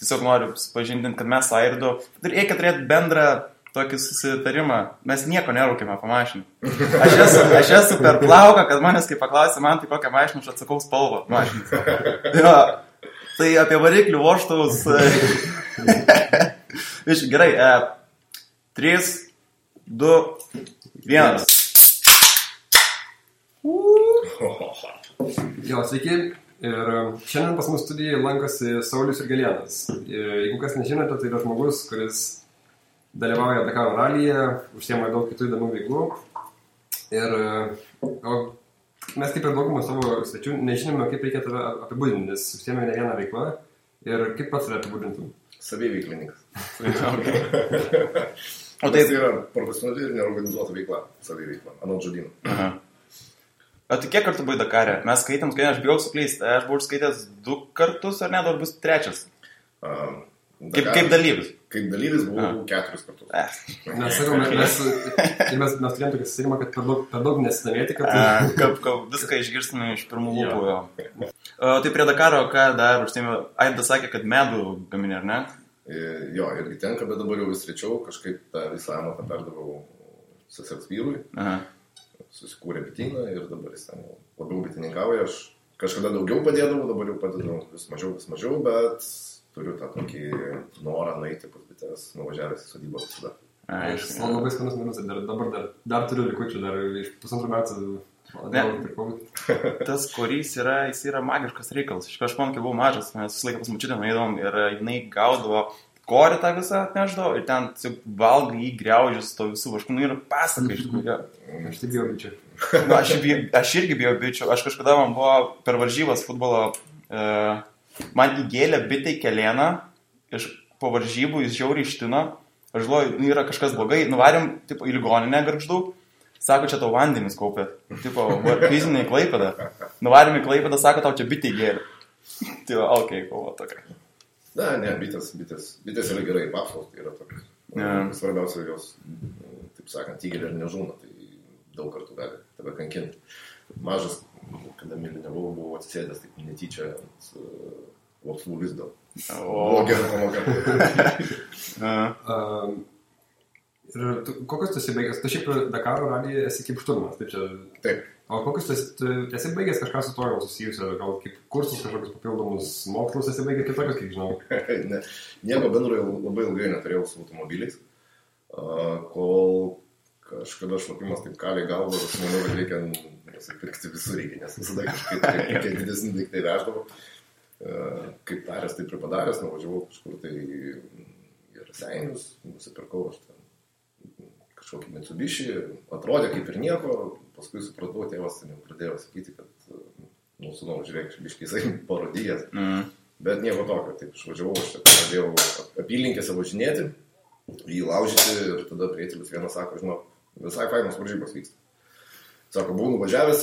tiesiog noriu supažindinti, kad mes Airdu reikia turėti bendrą tokį susitarimą. Mes nieko nerūkime po mašiną. Aš esu per plauką, kad manęs kai paklausė man, tai kokią mašiną aš atsakau spalvą mašiną. Jo, tai apie variklių vožtuvus. Gerai, 3, 2, 1. Jo, sveiki. Ir šiandien pas mus studijoje lankosi Saulius Jurgelėnas. Jeigu kas nežinote, tai yra žmogus, kuris dalyvauja Dakaro ralyje, užsiema daug kitų įdomių veiklų. Ir mes kaip ir daugumą savo svečių nežinome, kaip reikia tave apibūdinti, nes užsiema ne vieną veiklą. Ir kaip pats tave apibūdintum? Saviveiklininkas. O tai yra profesionali ir neorganizuota veikla, saviveikla, anot žodyno. O tai kiek kartų buvai Dakare? Mes skaitėm, aš bijau suklysti. Aš buvau skaitęs 2 kartus, ar ne, dar bus 3? Kaip dalyvis? Kaip dalyvis buvau 4 kartus. Mes sakome, mes turėjom tokį susitarimą, kad per daug nesidomėti, kad viską išgirstume iš pirmų lūpų. Tai prie Dakaro, ką dar užsiėmė? Aidas sakė, kad medų gaminė, ar ne? Jo, irgi tenka, bet dabar jau vis rečiau, kažkaip tą visą amatą perdavau sesers vyrui. Susikūrė bityną ir dabar jis ten labiau bitininkauja. Aš kažkada daugiau padėdavau, dabar jau padedu vis mažiau, bet turiu tą tokį norą nueiti pas bites, nuvažiavęs į sodybą visada. Labai skanus minus ir dabar dar turiu likučių, dar iš 1,5 metų. Tas korys jis yra magiškas reikalas. Aš man, kai buvau mažas, mes visą laiką pas mačiutę nueidom ir jinai gaudavo korį tą visą atneždavo ir ten valgai jį griaužis to visų vaškų. Ir pasaka iš tikrųjų. Aš tai bijau bičių. Aš irgi bijau bičių. Aš kažkada man buvo per varžybas futbolo, man įgėlė bitė į kelėną, po varžybų jis žiauriai ištino. Aš žinau, yra kažkas blogai, nuvarėm į ligoninę Gargždų. Sako, čia tau vandenis kaupė. Fizinė į Klaipėdą. Nuvarėm į Klaipėdą, sako, tau čia bitė įgėlė. Tai va, okei, kovo tokia. Ne, bitės yra gerai, papsos yra tokios. Svarbiausia jos, taip sakant, įgėlė ir nežūna, tai daug kartų gali tave kankinti. Mažas, kada mylinevau, buvau atsisėdęs taip netyčia ant vapsvų lizdo. Buvo gera pamoka. Ir kokius tu esi baigęs? Tu šiaip Dakaro ralyje esi kaip šturmanas, taip čia? Taip. O kokius tu esi baigęs kažką su to jau susijusio, gal kaip kursus kažkokius papildomus mokslus esi baigęs kitokius, kiek žinau? Nieko bendro labai ilgai neturėjau su automobiliais, kol kažkada šlapimas taip kaliai galvo ir aš manau, kad reikia pirkti visur reikia, nes visada kažkaip didesnį daiktai veždavo. Kaip taręs, taip ir padaręs, nuvažiavau kažkur tai į Raseinius, nusipirkau aš ten kažkokį Mitsubishi, atrodė kaip ir nieko, paskui supratau, tėvas ten jau pradėjo sakyti, kad sūnau, žiūrėk, biškai jisai parodijas, bet nieko tokio, taip išvažiavau, aš pradėjau apylinkėse važinėti, jį laužyti ir tada prietėlis vienas sako, žinau, visai fainos varžybos vyksta. Sako, buvau nuvažiavęs,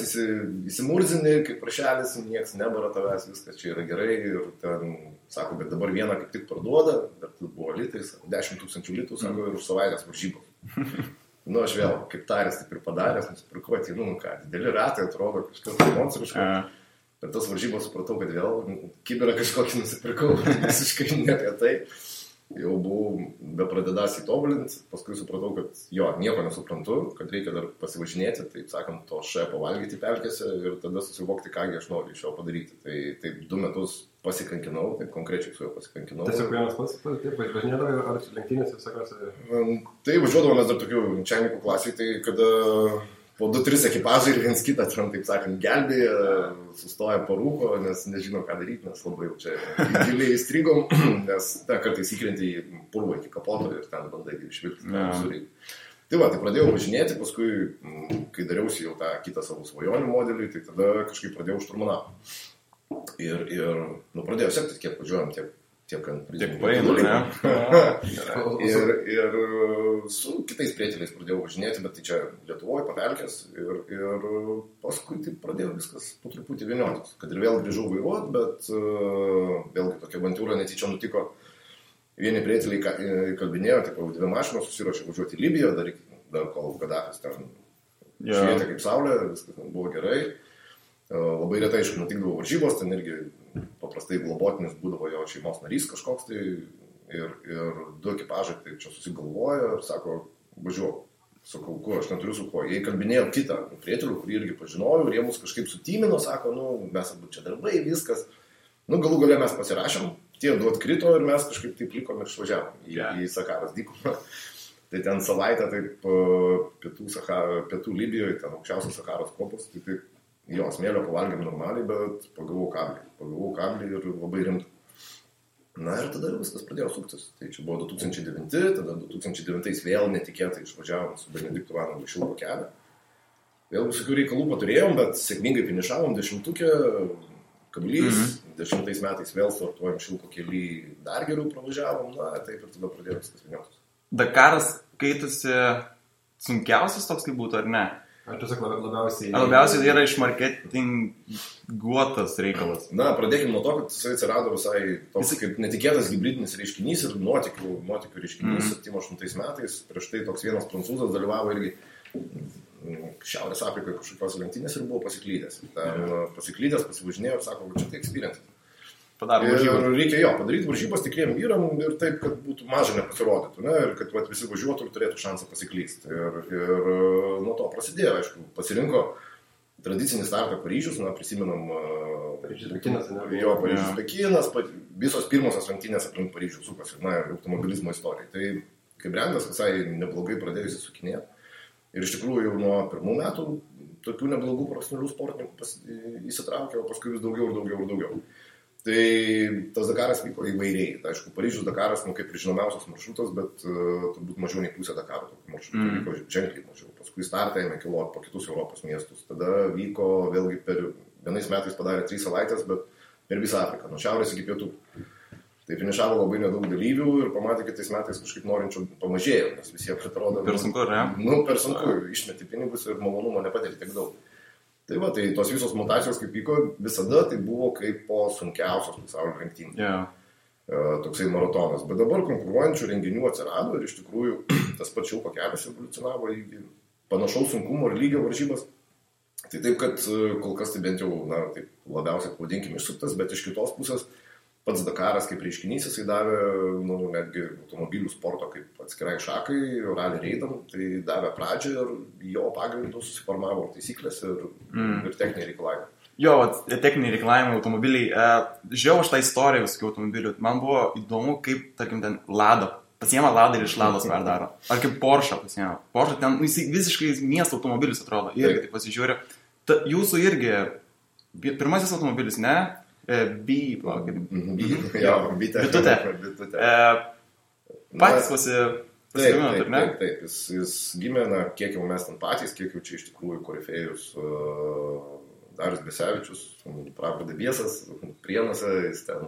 įsimurzinį, kaip prašelis, nieks nebara tavęs, viskas čia yra gerai ir ten, sako, bet dabar vieną kaip tik parduoda, bet buvo litai, 10 000 litų, sako, ir už savaitės varžybos. Aš vėl, kaip tarės, taip ir padaręs, nusipirkau, dideli ratai atrodo, kažkas monstriško, bet tas varžybos supratau, kad vėl kiberą kažkokį nusipirkau, visiškai ne apie tai. Jau buvau bepradedąs įtobulinti, paskui supratau, kad nieko nesuprantu, kad reikia dar pasivažinėti, taip sakant, to pavalgyti pelkėse ir tada susivokti, kągi aš noriu iš jo padaryti. Tai taip 2 metus pasikankinau, taip konkrečiai su juo pasikankinau. Tiesiog vienas pats, taip, važinėdavai ar lenktynės visokiose? Tai važiuodavomės dar tokių čemikų klasiai, tai kada po 2-3 ekipažai ir viens kitą, taip sakant, gelbėja, sustoja parūko, nes nežino, ką daryti, nes labai jau čia giliai įstrigom, nes kartais įkrenti į purvą iki kapoto ir ten bandai išvilkti tą visurį. Tai va, tai pradėjau važinėti, paskui, kai dariausi jau tą kitą savo svajonių modelį, tai tada kažkaip pradėjau šturmanauti. Ir pradėjau sekti, kiek važiuojam, tiek ant paėmų, ne? Ir su kitais prietėliais pradėjau važinėti, bet tai čia Lietuvoje papelkės ir paskui tai pradėjau viskas po truputį vieniotis. Kad ir vėl grįžau vairuoti, bet vėlgi tokia avantūra netyčia nutiko. Vieni prietėliai kalbinėjo, taip, 2 mašinos susiruošė važiuoti į Libiją, dar kol Gadafis ten švietė kaip saulė, viskas buvo gerai. Labai retai, aišku, nutikdavo varžybos, ten irgi paprastai globotinis būdavo jo šeimos narys kažkoks tai ir du ekipažai tai čia susigalvojo ir sako, važiuok. Sakau, kuo, aš neturiu su kuo. Jie kalbinėjo kitą prietelių, kurį irgi pažinojau ir jie mus kažkaip sutimino, sako, mes abu čia darbai, viskas. Galų gale mes pasirašėm, tie du atkrito ir mes kažkaip taip likom ir išvažiavom į Sakaros dykumą. Tai ten savaitę taip pietų Libijoje, ten aukščiausios Sakaros kopos, tai taip, jo, smėlio pavalgėm normaliai, bet pagavau kablį ir labai rimtą. Na ir tada viskas pradėjo suktis. Tai čia buvo 2009, tada 2009 vėl netikėtai išvažiavom su Benediktu Vanagu Šilko kelią. Vėl visokių reikalų paturėjom, bet sėkmingai finišavom 10-ukę, kablys, 10 metais vėl startuojam Šilko kely, dar geriau pravažiavom, na taip ir tada pradėjo viskas vieniotis. Dakaras kaitusi sunkiausias toks kaip būtų, ar ne? Ar tiesiog labiausiai... Labiausiai tai yra iš marketinguotas reikalas. Na, pradėkime nuo to, kad jisai atsirado visai toks kaip netikėtas hybridinis reiškinys ir nuotykių reiškinys 78 metais. Prieš tai toks vienas prancūzas dalyvavo irgi Šiaurės Afrikoje kažkokios lenktynės ir buvo pasiklydęs. Pasiklydęs, pasivažinėjo ir sako, čia tai experience. Reikia padaryti varžybas tikriem vyram ir taip, kad būtų mažai nepasirodytų, ne? Ir kad visi važiuotų ir turėtų šansą pasiklysti. Ir nuo to prasidėjo, aišku, pasirinko tradicinį startą Paryžius, prisimenam Paryžius Pekinas, visos pirmosios lenktynės aplink Paryžių sukasi, automobilizmo istorijai. Tai kaip brendas visai neblogai pradėjusi sukinėti. Ir iš tikrųjų jau nuo pirmų metų tokių neblogų profesionalių sportininkų įsitraukė, o paskui vis daugiau. Tai tas Dakaras vyko įvairiai. Tai, aišku, Paryžius Dakaras, kaip ir žinomiausias maršrutas, bet turbūt mažiau nei pusė Dakaro tokių maršrutų vyko ženkliai mažiau. Paskui startą ėmė keliauti po kitus Europos miestus. Tada vyko vėlgi vienais metais padarė 3 savaitės, bet per visą Afriką, nuo šiaurės iki pietų. Tai finišavo labai nedaug dalyvių ir pamatė, kad tais metais kažkaip norinčių pamažėjo, nes visiems atrodo... Per sunku, ne? Per sunku, išmeti pinigus ir malonumo nepatiri tiek daug. Tai va, tai tos visos mutacijos kaip vyko, visada tai buvo kaip po sunkiausios pasaulio lenktynės. Toksai maratonas. Bet dabar konkuruojančių renginių atsirado ir iš tikrųjų tas pats Šilko kelias evoliucionavo į panašaus sunkumo ir lygio varžybas. Tai taip, kad kol kas tai bent jau, taip labiausiai pavadinkime išsuktas, bet iš kitos pusės pats Dakaras kaip reiškinys jisai davė netgi automobilių sporto kaip atskirai šakai, rally reidam, tai davė pradžią ir jo pagrindų susiformavo taisyklės ir techniniai reikalavimai. Jo, techniniai reikalavimai, automobiliai. Žiūrėjau aš tą istoriją visokių automobilių. Man buvo įdomu, kaip, tarkim, ten Lada. Pasiema Lada ir iš Lados perdaro. Ar kaip Porsche pasiema. Porsche ten visiškai miesto automobilis atrodo. Irgi taip pasižiūrė. Jūsų irgi pirmasis automobilis, ne? Bitutė. Patys pasigaminot, ar ne? Taip. Jis gimė, kiek jau mes ten patys, kiek jau čia iš tikrųjų korifėjus Darius Besevičius, Pravda Biesas, Prienuose, jis ten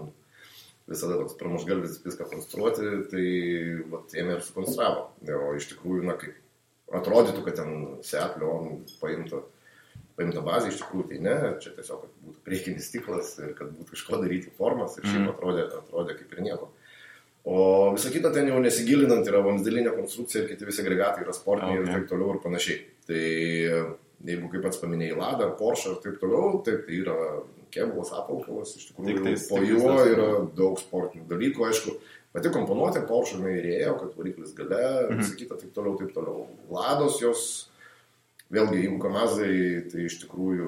visada toks pramušgalvis viską konstruoti, tai ėmė ir sukonstravo. O iš tikrųjų, kaip atrodytų, kad ten Seat Leon paimta bazė, iš tikrųjų tai ne, čia tiesiog, kad būtų priekinis stiklas ir kad būtų iš ko daryti formas ir šiaip atrodė kaip ir nieko. O visą kitą ten jau nesigilinant yra vamzdelinė konstrukcija ir kiti visi agregatai yra sportiniai ir taip toliau ir panašiai. Tai jeigu kaip pats paminėjai Lada, Porsche ir taip toliau, taip tai yra kėbulas, apvalkalas, iš tikrųjų po juo yra daug sportinių dalykų, aišku, pati komponuotė Porsche įrėjo, kad variklis gale, visą kitą taip toliau. Lados jos vėlgi, jeigu Kamazai, tai iš tikrųjų,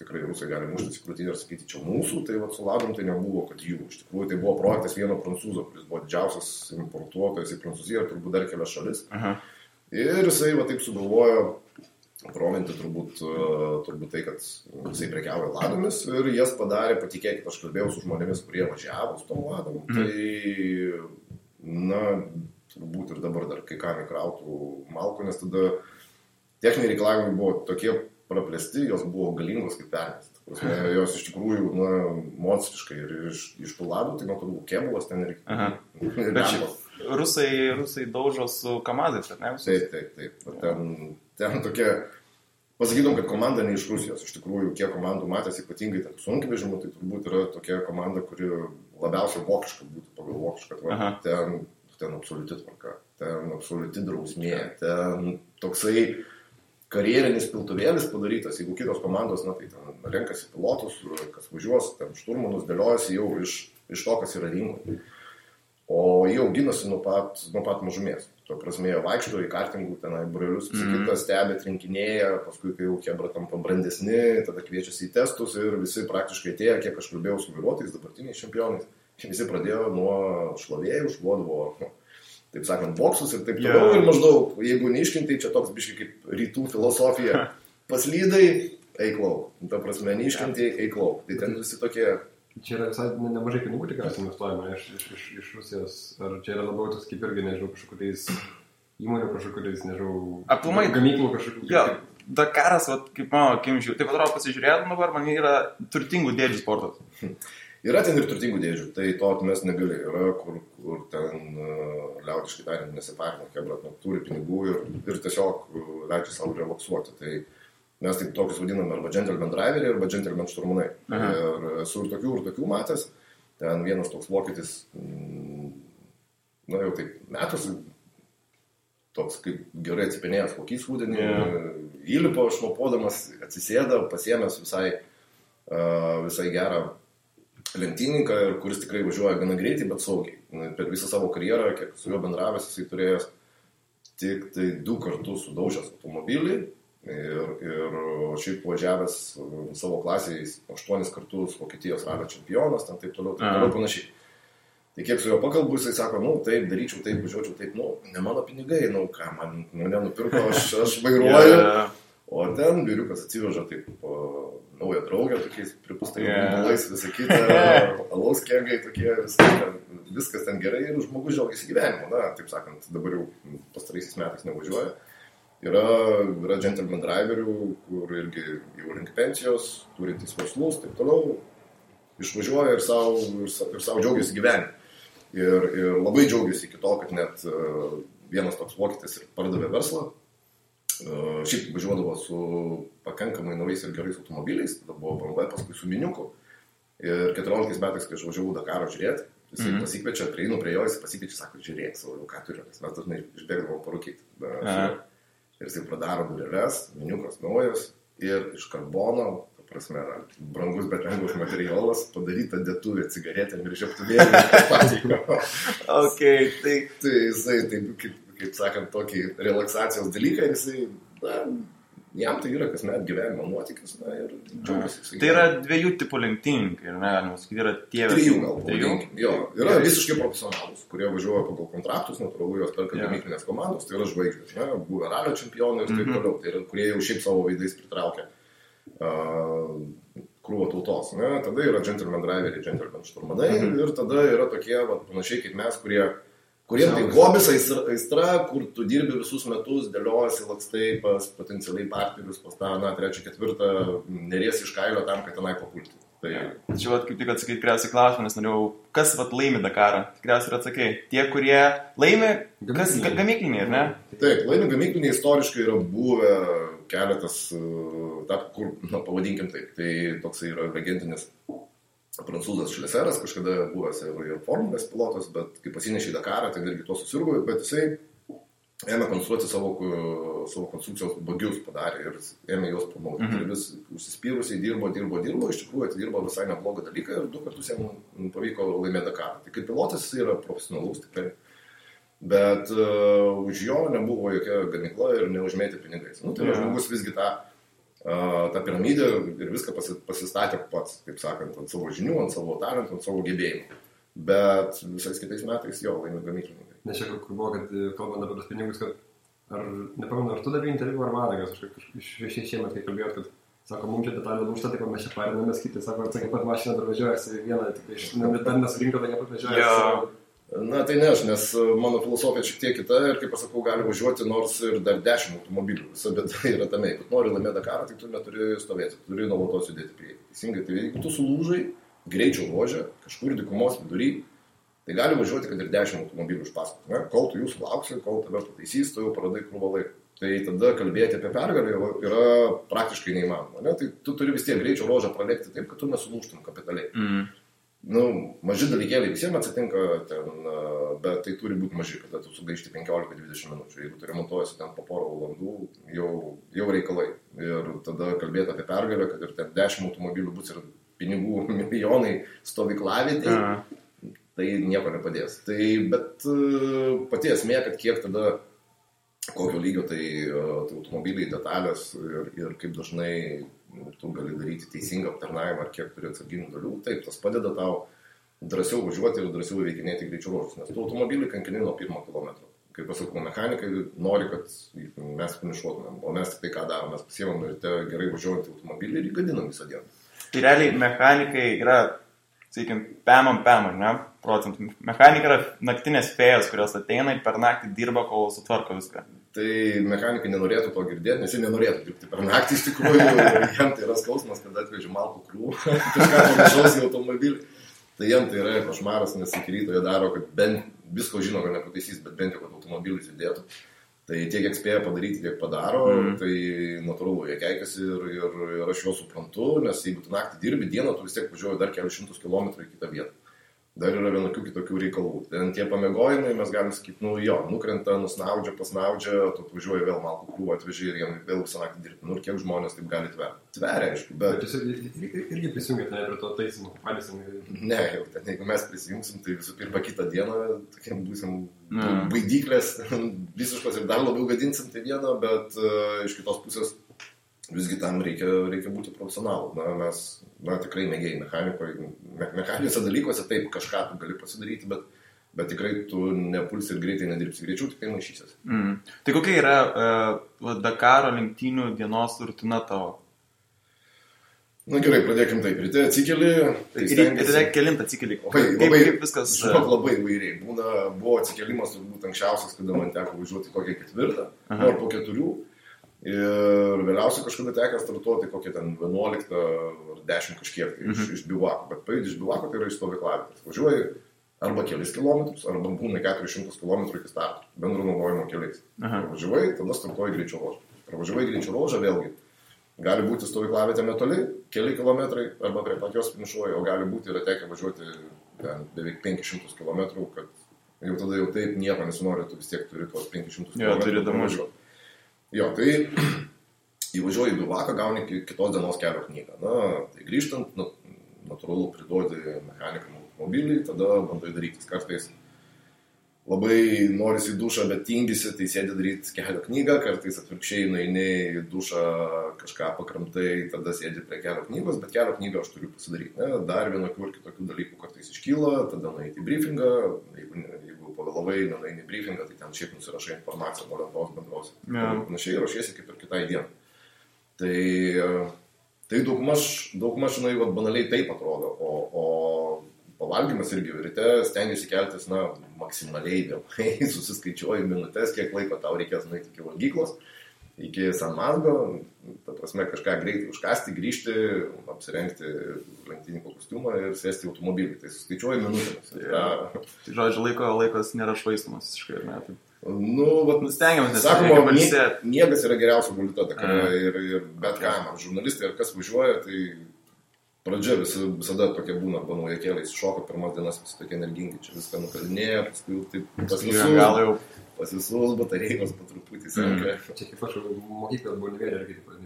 tikrai rusai gali muštis į krūtinę ir sakyti, čia mūsų, tai su Ladom tai nebuvo, kad jų. Iš tikrųjų, tai buvo projektas vieno prancūzo, kuris buvo didžiausias importuotojas į Prancūziją ir turbūt dar kelias šalis. Ir jisai taip sugalvojo provinti turbūt tai, kad jisai prekiavo Ladomis ir jas padarė, patikėkit, aš kalbėjau su žmonėmis, kurie važiavo su tom Ladom, tai, turbūt ir dabar dar kai kam įkrautų malko, nes tada techniniai reikalavimai buvo tokie praplėsti, jos buvo galingos kaip pernės. Jos iš tikrųjų, monstriškai ir iš tų Ladų, tai matau, kėbulas ten ir lempos. Rusai daužo su Kamazais, ar ne? Taip. Ten tokie, pasakytum, kad komanda ne iš Rusijos. Iš tikrųjų, kiek komandų matęs, ypatingai tarp sunkvežimų, tai turbūt yra tokia komanda, kuri labiausiai vokiška būtų pagal vokišką. Ten absoliuti tvarka, ten absoliuti drausmė, ten toksai karjerinis piltuvėlis padarytas, jeigu kitos komandos, na, tai ten renkasi pilotus, kas važiuos, ten šturmanus dėliojasi jau iš to, kas yra rinkoje. O jie auginasi nuo pat mažumės. Tuo prasme, jie vaikšto į kartingų, tenai brolius, kitą stebė, trinkinėja, paskui, kai jau kebra tampa brandesni, tada kviečiasi į testus ir visi praktiškai atėjo, kiek aš kalbėjau su vairuotojais, dabartiniais čempionais, visi pradėjo nuo šlavėjų, šluodavo, taip sakant, boksus ir taip toliau. Ir maždaug, jeigu neiškintai, čia toks biškai kaip rytų filosofija, paslydai, eik lauk. Ta prasme, neiškintai, eik lauk. Tai ten visi tokie... Čia yra visai nemažai pinigų tikriausiai investuojama iš Rusijos. Ar čia yra labiau toks kaip irgi, nežinau, kažkokiais įmonių, kažkokiais, nežinau, aplamai gamyklų kažkokių. Jo, Dakaras, kaip mano akimžių, taip atrodo pasižiūrėtum dabar, man yra turtingų dėdžių sportas. Yra ten ir turtingų dėdžių, tai to atmest negali. Yra, kur ten liaudiškai tariant nesiparina, kebra turi pinigų ir tiesiog leidžia savo relaksuoti. Tai mes taip tokius vadiname arba gentleman driveriai, arba gentleman šturmanai. Ir esu ir tokių matęs. Ten vienas toks vokietis, na jau taip metus, toks kaip gerai atsipinėjęs kokys rudenį, įlipo šnopodamas, atsisėda, pasiėmęs visai gerą lenktynininką, kuris tikrai važiuoja gana greitai, bet saugiai. Per visą savo karjerą, kiek su juo bendravęs, jisai turėjęs tik tai 2 kartus sudaužęs automobilį. Ir šiaip važiavęs savo klasėje 8 kartus Vokietijos ralio čempionas, ten taip toliau panašiai. Tai kiek su juo pakalbu, jisai sako, taip, daryčiau, taip, važiuočiau, taip, ne mano pinigai, ką mane nupirko, aš vairuoju. O ten vyriukas atsiveža taip naują draugę, tokiais pripustais balais, visą kitą, alaus kėgai tokie, viskas ten gerai ir žmogus džiaugiasi gyvenimu, taip sakant, dabar jau pastaraisiais metais nevažiuoja. Yra gentleman driverių, kur irgi jau link pensijos, turintys verslus, taip toliau, išvažiuoja ir savo džiaugiasi gyvenimu. Ir labai džiaugiasi iki to, kad net vienas toks vokietis ir pardavė verslą. Šiaip važiuodavo su pakankamai naujais ir gerais automobiliais, tada buvo BMW, paskui su miniuku. Ir 14 metais, kai aš važiavau Dakaro žiūrėti, jisai pasikviečia, prieinu prie jo, jis pasikviečia, sako, žiūrėk, ką turiu, nes mes dažnai išbėgdavom parūkyti. Ir jisai pradaro dureles, miniukas naujas ir iš karbono, ta prasme, brangus, bet lengvas materialas, padaryta dėtuvė cigaretėm ir žiebtuvėlį. Tai jisai, kaip sakant, tokį relaksacijos dalyką ir jisai, jam tai yra kasmet gyvenimo nuotykis, ir džiaugiasi. Tai yra 2 tipų lenktynininkai, galima sakyti, yra tie... 3 gal, pavadinkim. Jo, yra visiškai profesionalus, kurie važiuoja pagal kontraktus, natūralu, jos perka gamyklinės komandos, tai yra žvaigždės, buvę ralio čempionai ir taip toliau, tai yra, kurie jau šiaip savo veidais pritraukia krūvą tautos. Tada yra gentleman driveriai, gentleman šturmanai ir tada yra tokie, panašiai kaip mes, kuriem tai hobis aistra, kur tu dirbi visus metus, dėliojasi lakstai pas potencialiai partnerius, pas tą, 3, 4, neriesi iš kailio tam, kad tenai papulti. Čia kaip tik atsakai tikriausiai klausimą, nes norėjau, kas laimi Dakarą? Tikriausiai ir atsakai. Tie, kurie laimi, kas gamykliniai, ar ne? Taip, laimi gamykliniai istoriškai yra buvę keletas, kur, pavadinkim taip, tai toksai yra legendinis prancūzas Šleseras, kažkada buvęs ir formulės pilotas, bet kai pasinešė į Dakarą, tai irgi to susirgo, bet jisai ėmė konstruoti savo konstrukcijos bagius padarė ir ėmė juos pamauti. Ir vis užsispyrusiai dirbo, iš tikrųjų atidirbo visai neblogą dalyką ir 2 kartus jam pavyko laimėti Dakarą. Tai kaip pilotas jis yra profesionalus tikrai, bet už jo nebuvo jokia gamykla ir neužmėtė pinigais. Tai žmogus visgi tą piramidę ir viską pasistatė pats, taip sakant, ant savo žinių, ant savo talentų, ant savo gebėjimų. Bet visais kitais metais jo laimė gamyklininkai. Nes čia kur buvo, kad kalbant apie tos pinigus, kad nepamenu, ar tu davai interviu ar Vanagas, aš šiemet, kai kalbėjot, kad sako, mums čia detalė lūžta, tai mes čia parinamės kiti, sako, atsakė, pat mašina dar važiuojasi vieną, tik dar nesurinko, tai nepat važiuojasi. Na tai ne aš, nes mano filosofija šiek tiek kita ir kaip pasakau, gali važiuoti nors ir dar 10 automobilių. Visa bėda yra tame, kad nori laimėti Dakarą, tai tu neturi stovėti, turi nuolatos judėti priekį. Teisingai, tai jeigu tu sulūžai greičio ruože, kažkur dykumos vidury, tai gali važiuoti, kad ir 10 automobilių iš paskos. Kol tu jų sulauksi, kol tave pataisys, tu jau praradai krūvą laiką. Tai tada kalbėti apie pergalę yra praktiškai neįmanoma. Tai tu turi vis tiek greičio ruožą pralėkti taip, kad tu nesulūžtum kapitaliai. Maži dalykėliai visiems atsitinka, bet tai turi būti maži, kada tu sugaišti 15-20 minučių. Jeigu tu remontuojasi ten po porą valandų, jau reikalai. Ir tada kalbėti apie pergalę, kad ir ten 10 automobilių bus ir pinigų milijonai stovyklavietėje, tai nieko nepadės. Bet pati esmė, kad kiek tada, kokio lygio tai automobiliai, detalės ir kaip dažnai tu gali daryti teisingą aptarnavimą ar kiek turi atsarginių dalių, taip, tas padeda tau drąsiau važiuoti ir drąsiau įveikinėti greičio ruožus, nes tu automobilį kankini nuo 1 kilometro. Kaip pasakau, mechanikai nori, kad mes finišuotumėm, o mes tik tai ką darom, mes pasiemam ir gerai važiuojantį automobilį ir įgadinam visą dieną. Tai realiai mechanikai yra, sakykim, pemam, ne, procentų. Mechanikai yra naktinės fėjos, kurios ateina ir per naktį dirba, kol sutvarko viską. Tai mechanikai nenorėtų to girdėti, nes jie nenorėtų dirbti per naktį, iš tikrųjų, jam tai yra skausmas, kad atvežė malkų krūvą, kažką panašaus į automobilį. Tai jam tai yra košmaras, nes iki ryto jie daro, kad bent visko žino, kad nepataisys, bet bent jau, kad automobilis judėtų. Tai tiek kiek spėja padaryti, tiek padaro, tai natūralu, jie keikiasi ir aš juos suprantu, nes jeigu tu naktį dirbi dieną, tu vis tiek važiuoji dar kelius šimtus kilometrų į kitą vietą. Dar yra vienokių kitokių reikalų. Ten tie pamiegojimai, mes galim sakyti, nukrenta, nusnaudžia, pasnaudžia, tu važiuoji vėl malkų krūvą atveži ir jiem vėl visą naktį dirbti. Ir kiek žmonės taip gali tverti. Tveria, aišku, bet... Tiesiog irgi prisijungėte prie to taisymo, palėsim. Ne, jau ten, jeigu mes prisijungsim, tai visų pirma kitą dieną, tokiam būsim baidyklės, visiškos ir dar labiau gadinsim tai vieną, bet iš kitos pusės visgi tam reikia būti profesionalu. Mes tikrai mėgėjai mechaniniuose dalykuose taip kažką tu gali pasidaryti, bet tikrai tu nepulsi ir greitai nedirbsi, greičiau tik tai maišysies. Tai kokia yra Dakaro lenktynių dienos rutina tavo? Gerai, pradėkim taip. Ryte atsikeli. Ryte kelint atsikeli. Kaip viskas? Labai įvairiai. Buvo atsikelimas turbūt anksčiausias, kada man teko važiuoti kokią 4, ar po 4. Ir vėliausiai kažkada teko startuoti kokią ten 11 ar 10 kažkiek iš bivako. Bet pajūdį iš bivako tai yra iš stovyklavimo. Važiuoji arba kelis kilometrus, arba būna 400 km iki starto, bendro naudojimo keliais. Važiuoji, tada startuoji greičio ruožą. Pravažiuoji greičio ruožą vėlgi. Gali būti stovyklavietė netoli, keli kilometrai, arba prie pat jos finišuoji, o gali būti yra tekę važiuoti ten beveik 500 km, kad jau tada jau taip nieko nesinori, tu vis tiek turi tuos 500 km važiuoti. Jo, tai įvažiuoji į bivaką, gauni kitos dienos kelio knygą. Tai grįžtant, natūralu priduodi mechanikam automobilį, tada bandai darytis. Kartais labai norisi į dušą, bet tingisi, tai sėdi daryti kelio knygą, kartais atvirkščiai nueini į dušą, kažką pakramtai, tada sėdi prie kelio knygos, bet kelio knygą aš turiu pasidaryti. Dar vienokių ir kitokių dalykų kartais iškyla, tada nueiti į briefingą, jeigu pavėlavai, nueini į briefingą, tai ten šiaip nusirašai informaciją nuo lentos bendros. Panašiai rašiesi kaip ir kitai dienai. Tai daugmaž, banaliai taip atrodo, o pavalgymas irgi ryte stengiasi keltis, maksimaliai vėlai, susiskaičiuoji minutės, kiek laiko tau reikės nueiti iki valgyklos, iki San Mazgo, ta prasme kažką greitai užkasti, grįžti, apsirengti lenktynininko kostiumą ir sėsti į automobilį. Tai suskaičiuoji minutėmis. Tai žodžiu, laikas nėra švaistomas visiškai, ar ne? Stengiamės, sakoma, miegas yra geriausia valiuta Dakare ir bet kam, žurnalistai ar kas važiuoja, tai pradžia visada tokia būna, arba naujakėliai šoka pirmas dienas, visi tokie energingi, čia viską nukalinėja, paskui taip pas visus batarėjos po truputį senka. Čia kaip aš mokyklą buvo nevėlė,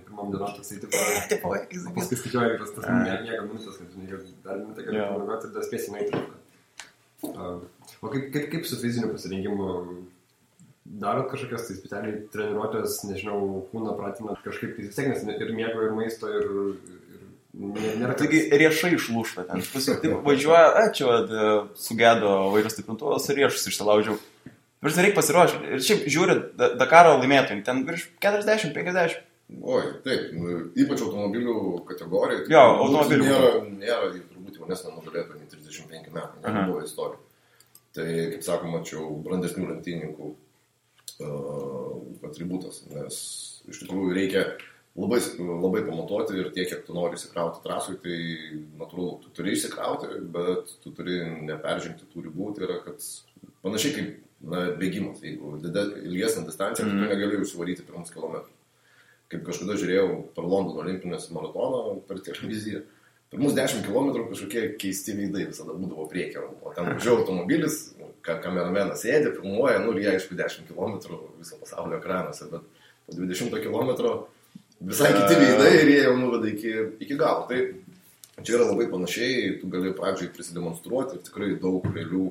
pirmam dienom toksai paskui skaičiuoja tas miega minutės, kad dar minutę gali pamėgoti ir dar spėsi nueiti. O kaip su fiziniu pasirengimu darot kažkokias tai specialiai treniruotės, nežinau, kūną pratinat kažkaip tai vis tiek, nes ir miego, ir maisto, ir nėra. Taigi riešai išlūšta ten. Taip važiuoja, čia sugedo vairo stiprintuvas ir riešus išsilaužiau. Vis reikia pasiruošti. Ir šiaip žiūri Dakaro laimėtojai, ten virš 40-50. Oi, taip, ypač automobilių kategorijai. Jo, automobilių. Nėra turbūt jaunesnė nugalėtoja nei 35 metų, nebuvo istorija. Tai, kaip sakoma, čia brandesnių lenktynininkų atributas, nes iš tikrųjų reikia labai pamatuoti ir tiek, kiek tu nori įsikrauti trasui, tai natūralu, tu turi įsikrauti, bet tu turi neperžengti tų ribų, tai yra, kad panašiai kaip bėgimas, jeigu ilgesnė distancija, tai tu negali užsivaryti pirmus kilometrus. Kaip kažkada žiūrėjau per Londono olimpinės maratoną per televiziją, Pirmus 10 km kažkokie keisti veidai visada būdavo priekio. O ten važiavo automobilis, kameramenas sėdė, filmuoja, nu ir jie aišku 10 km viso pasaulio ekranuose, bet po 20 km visai kiti veidai ir jie jau nuveda iki galo. Tai čia yra labai panašiai, tu gali pradžiai prisidemonstruoti ir tikrai daug realių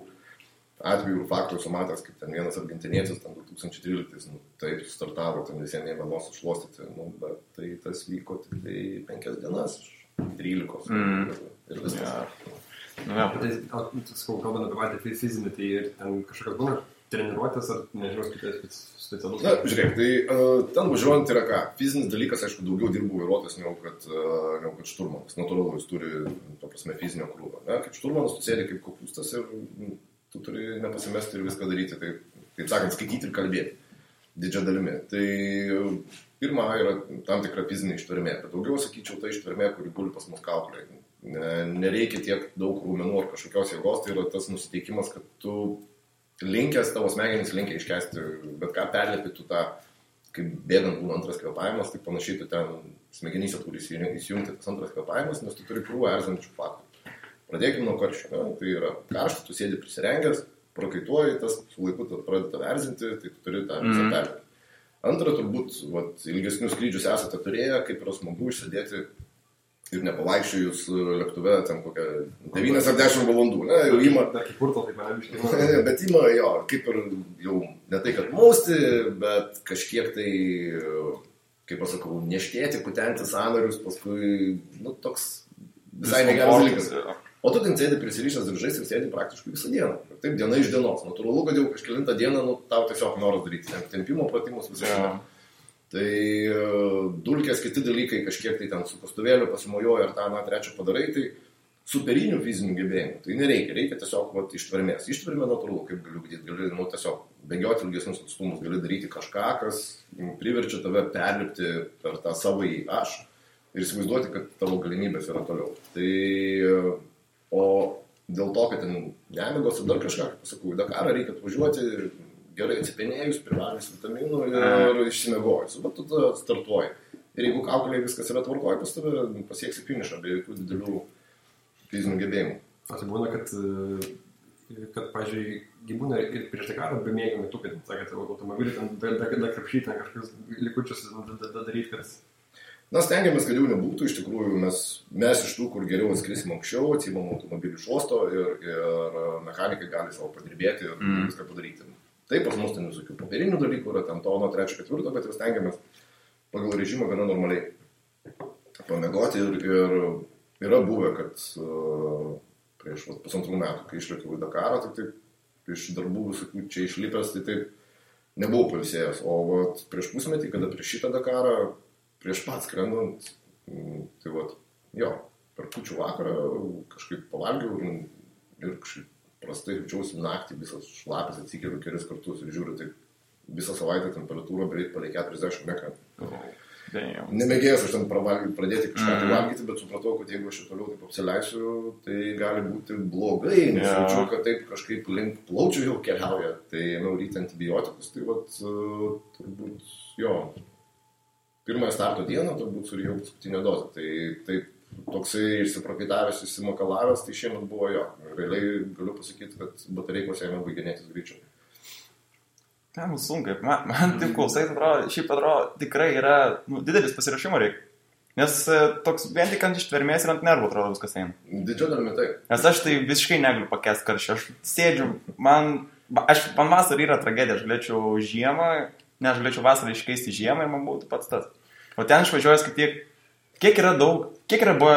atvejų ir faktų esu matęs, kaip ten vienas argentinietis, ten 2013, taip startavo, ten visiems ėmė nosą šluostyti, bet tai tas vyko tik tai 5 dienas, 13 ir viskas. Tai, kalbant apie patį fizinį, tai ir ten kažkokios būna treniruotės ar nežinau, kitas specialus? Na, žiūrėk, tai ten važiuojant yra ką? Fizinis dalykas, aišku, daugiau dirbų vairuotojas negu kad šturmanas. Natūralu, jis turi, to prasme, fizinio krūvą. Kaip šturmanas, tu sėdi kaip kopūstas ir tu turi nepasimesti ir viską daryti, taip sakant, skaityti ir kalbėti didžia dalimi. Tai pirma yra tam tikra fizinė ištvermė, bet daugiau, sakyčiau, ta ištvermė, kuri guli pas mus kaukolėje. Nereikia tiek daug raumenų ar kažkokios jėgos, tai yra tas nusiteikimas, kad tu linkęs, tavo smegenys linkia iškesti, bet ką perlėpi tu tą, kaip bėgant būna antras kvėpavimas, tai panašiai tu ten smegenyse turi įsijungti tas antras kvėpavimas, nes tu turi krūvą erzinančių faktų. Pradėkime nuo karščio, tai yra karšta, tu sėdi prisirengęs, prakaituoji, tas su laiku pradeda erzinti, tai tu turi tą visą perlėpti. Antra, turbūt, ilgesnius skrydžius esate turėję, kaip yra smagu išsėdėti ir nepavaikščiojus lėktuve ten kokią 9 ar 10 valandų, ne, jau ima. Dar kaip kurto, taip nebiškai. Bet ima, jo, kaip ir jau ne tai, kad mausti, bet kažkiek tai, kaip pasakau, neštėti, kutenti sąnarius, paskui, toks visai negeras dalykas. O tu ten sėdi prisirišęs diržais ir sėdi praktiškai visą dieną. Ir taip diena iš dienos. Natūralu, kad jau kažkelintą dieną tau tiesiog noras daryti tempimo pratimus visą dieną. Tai dulkės, kiti dalykai, kažkiek tai ten su kastuvėliu pasimojoja ar tą, trečią padarai, tai superinių fizinių gebėjimų. Tai nereikia, reikia tiesiog ištvermės. Ištvermė natūralu, kaip galiu gali tiesiog bėgioti ilgesnius atstumus, gali daryti kažką, kas priverčia tave perlipti per tą savąjį aš ir įsivaizduoti, kad tavo galimybės yra toliau. Tai o dėl to, kad ten nemigos ir dar kažką, kaip pasakau, į Dakarą reikia atvažiuoti gerai atsipenėjus, privalys vitaminų ir išsimiegojus. Bet tu startuoji. Ir jeigu kaukolėje viskas yra tvarkoje, pas tave pasieksi finišą be jokių didelių fizinių gebėjimų. O tai būna, kad pažiūrėjai, gyvūna ir prieš Dakarą be mėgimai tu, kad, sakėte, automobilį ten da krapšyti, ten kažkokius likučius daryti, kad... Na, stengiamės, kad jau nebūtų, iš tikrųjų, mes iš tų, kur geriau atskrisim anksčiau, atsimam automobilį iš uosto ir mechanikai gali savo padirbėti ir viską padaryti. Taip, pas mus ten visokių papirinių dalykų yra, ten tono 3-4, bet jau stengiamės pagal režimą gana normaliai pamėgoti ir yra buvę, kad prieš 1,5 metų, kai išlėkiau į Dakarą, tai taip iš darbų visokių čia išlipęs, tai taip nebuvau pailsėjęs. O prieš pusmetį, kada prieš šitą Dakarą, prieš pat skrendant, tai per kūčių vakarą kažkaip pavalgiau ir kažkaip prastai jaučiausi naktį, visas šlapis atsikėliau kelis kartus ir žiūriu, tai visą savaitę temperatūra beveik palei 40 metrų. Nemėgėjęs aš ten pradėti kažką tai valgyti, bet supratau, kad jeigu aš toliau taip apsileisiu, tai gali būti blogai, nes jaučiu, kad taip kažkaip link plaučių jau keliauja, tai ėmiau ryti antibiotikus, tai turbūt pirmąją starto dieną turbūt surijau paskutinę dozę. Tai taip toksai išsiprakaitavęs, išsimakalavęs, tai šiemet buvo jo. Realiai galiu pasakyti, kad batareikos ėmė baiginėtis greičiau. Ten sunkai. Man taip klausai, šiaip atrodo, tikrai yra didelis pasirašymo reikia. Nes toks vien tik ant ištvermės ir ant nervų atrodo viskas eina. Didžia dalimi taip. Nes aš tai visiškai negaliu pakęsti karščio. Aš sėdžiu, man vasarą yra tragedija, aš galėčiau žiemą, ne, aš galėčiau vasarą iškeisti žiemą ir man būtų pats tas. O ten išvažiuojas, kiek yra buvo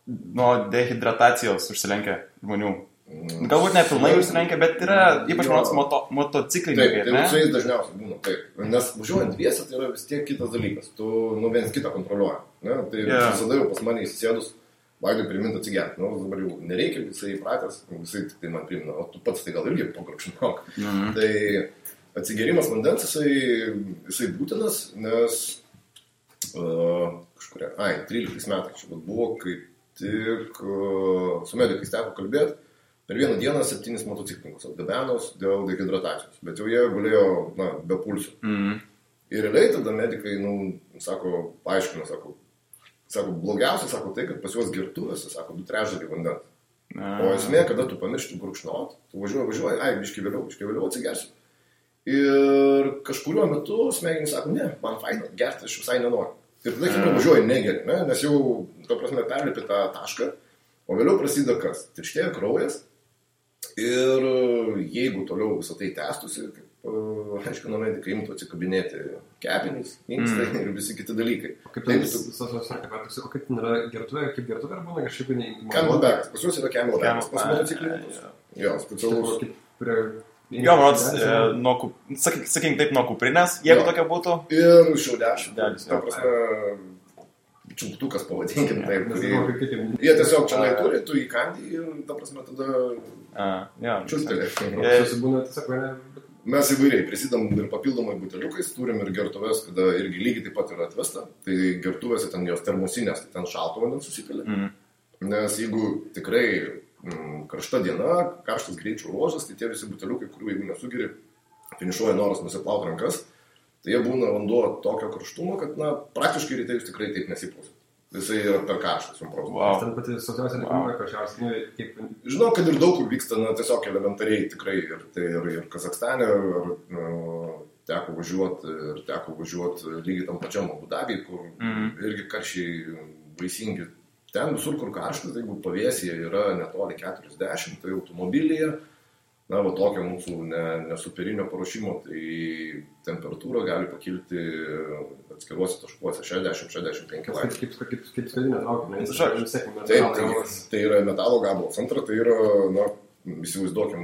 nuo dehidratacijos užsilenkę žmonių. Galbūt ne pilnai užsilenkę, bet yra ypač motociklininkai. Taip, tai su jais dažniausiai būna taip. Nes važiuojant dviese, tai yra vis tiek kitas dalykas. Tu viens kitą kontroliuoji. Tai visada jau pas mane įsisėdus, Vaidui primint atsigerti. Dabar jau nereikia, visai įpratęs, visai tik tai man primina, o tu pats tai gal irgi pagrapšinok. Tai atsigerimas vandens, jisai būtinas, nes 13 metais čia buvo, kai tik su medikais teko kalbėti, per vieną dieną 7 motociklininkus atgabenos dėl dehidratacijos, bet jau jie gulėjo be pulsų. Ir realiai tada medikai, paaiškino, Sako, blogiausia, sako tai, kad pas juos gertuvėse, sako, 2/3 vandens. O esmė, kada tu pamiršti gurkšnot, tu važiuoji, biški vėliau atsigersiu. Ir kažkuriuo metu smegenys sako, ne, man faina, gerti aš visai nenoriu. Ir tada, kai važiuoji, negeri, ne? Nes jau, to prasme, perlipi tą tašką, o vėliau prasideda kas? Tirštėja kraujas. Ir jeigu toliau visą tai tęstusi, kaip aiškino medikai, imtų atsikabinėti kepenys, inkstai ir visi kiti dalykai. Kaip tai kaip nėra gertuvė, kaip gertuvė ar būna kažkaip neįmanoma? Camelbackas, pas jūs yra camelbackas, pas motociklininkus. Jo, specialus. Jo, man sakykim taip, nuo kuprinės, jeigu tokia būtų. Ir šiaudelis. Ta prasme, čiulptukas pavadinkim taip. Jie tiesiog čia turi, tu įkandi ir, ta prasme, tada čiulptelė. Mes įvairiai prisidam ir papildomai buteliukais, turim ir gertuvės, kada irgi lygiai taip pat yra atvesta. Tai gertuvėse ten jos termosinės, tai ten šalto vandens susipilė. Nes jeigu tikrai karšta diena, karštas greičių ruožas, tai tie visi buteliukai, kurių jeigu nesugeri, finišuoja noras nusiplaut rankas, tai jie būna vanduo tokio karštumo, kad, praktiškai ryte jūs tikrai taip nesiplausit. Visai yra per karštas, jums protas. Wow. Ten pati sausiausia nekumai karščiausia. Žinau, kad ir daug kur vyksta, tiesiog elementariai tikrai. Ir Kazakstane, teko važiuoti lygiai tam pačiam Abu Dabiui, kur irgi karščiai baisingi. Ten visur, kur karštas, jeigu pavėsyje yra netoli 40, tai automobilyje, tokio mūsų nesuperinio paruošimo, tai temperatūra gali pakilti atskiruose taškuose 60-65 laipsnių. Kaip skardinė traukia, tai yra metalo gabalas. Antra, tai yra, įsivaizduokim,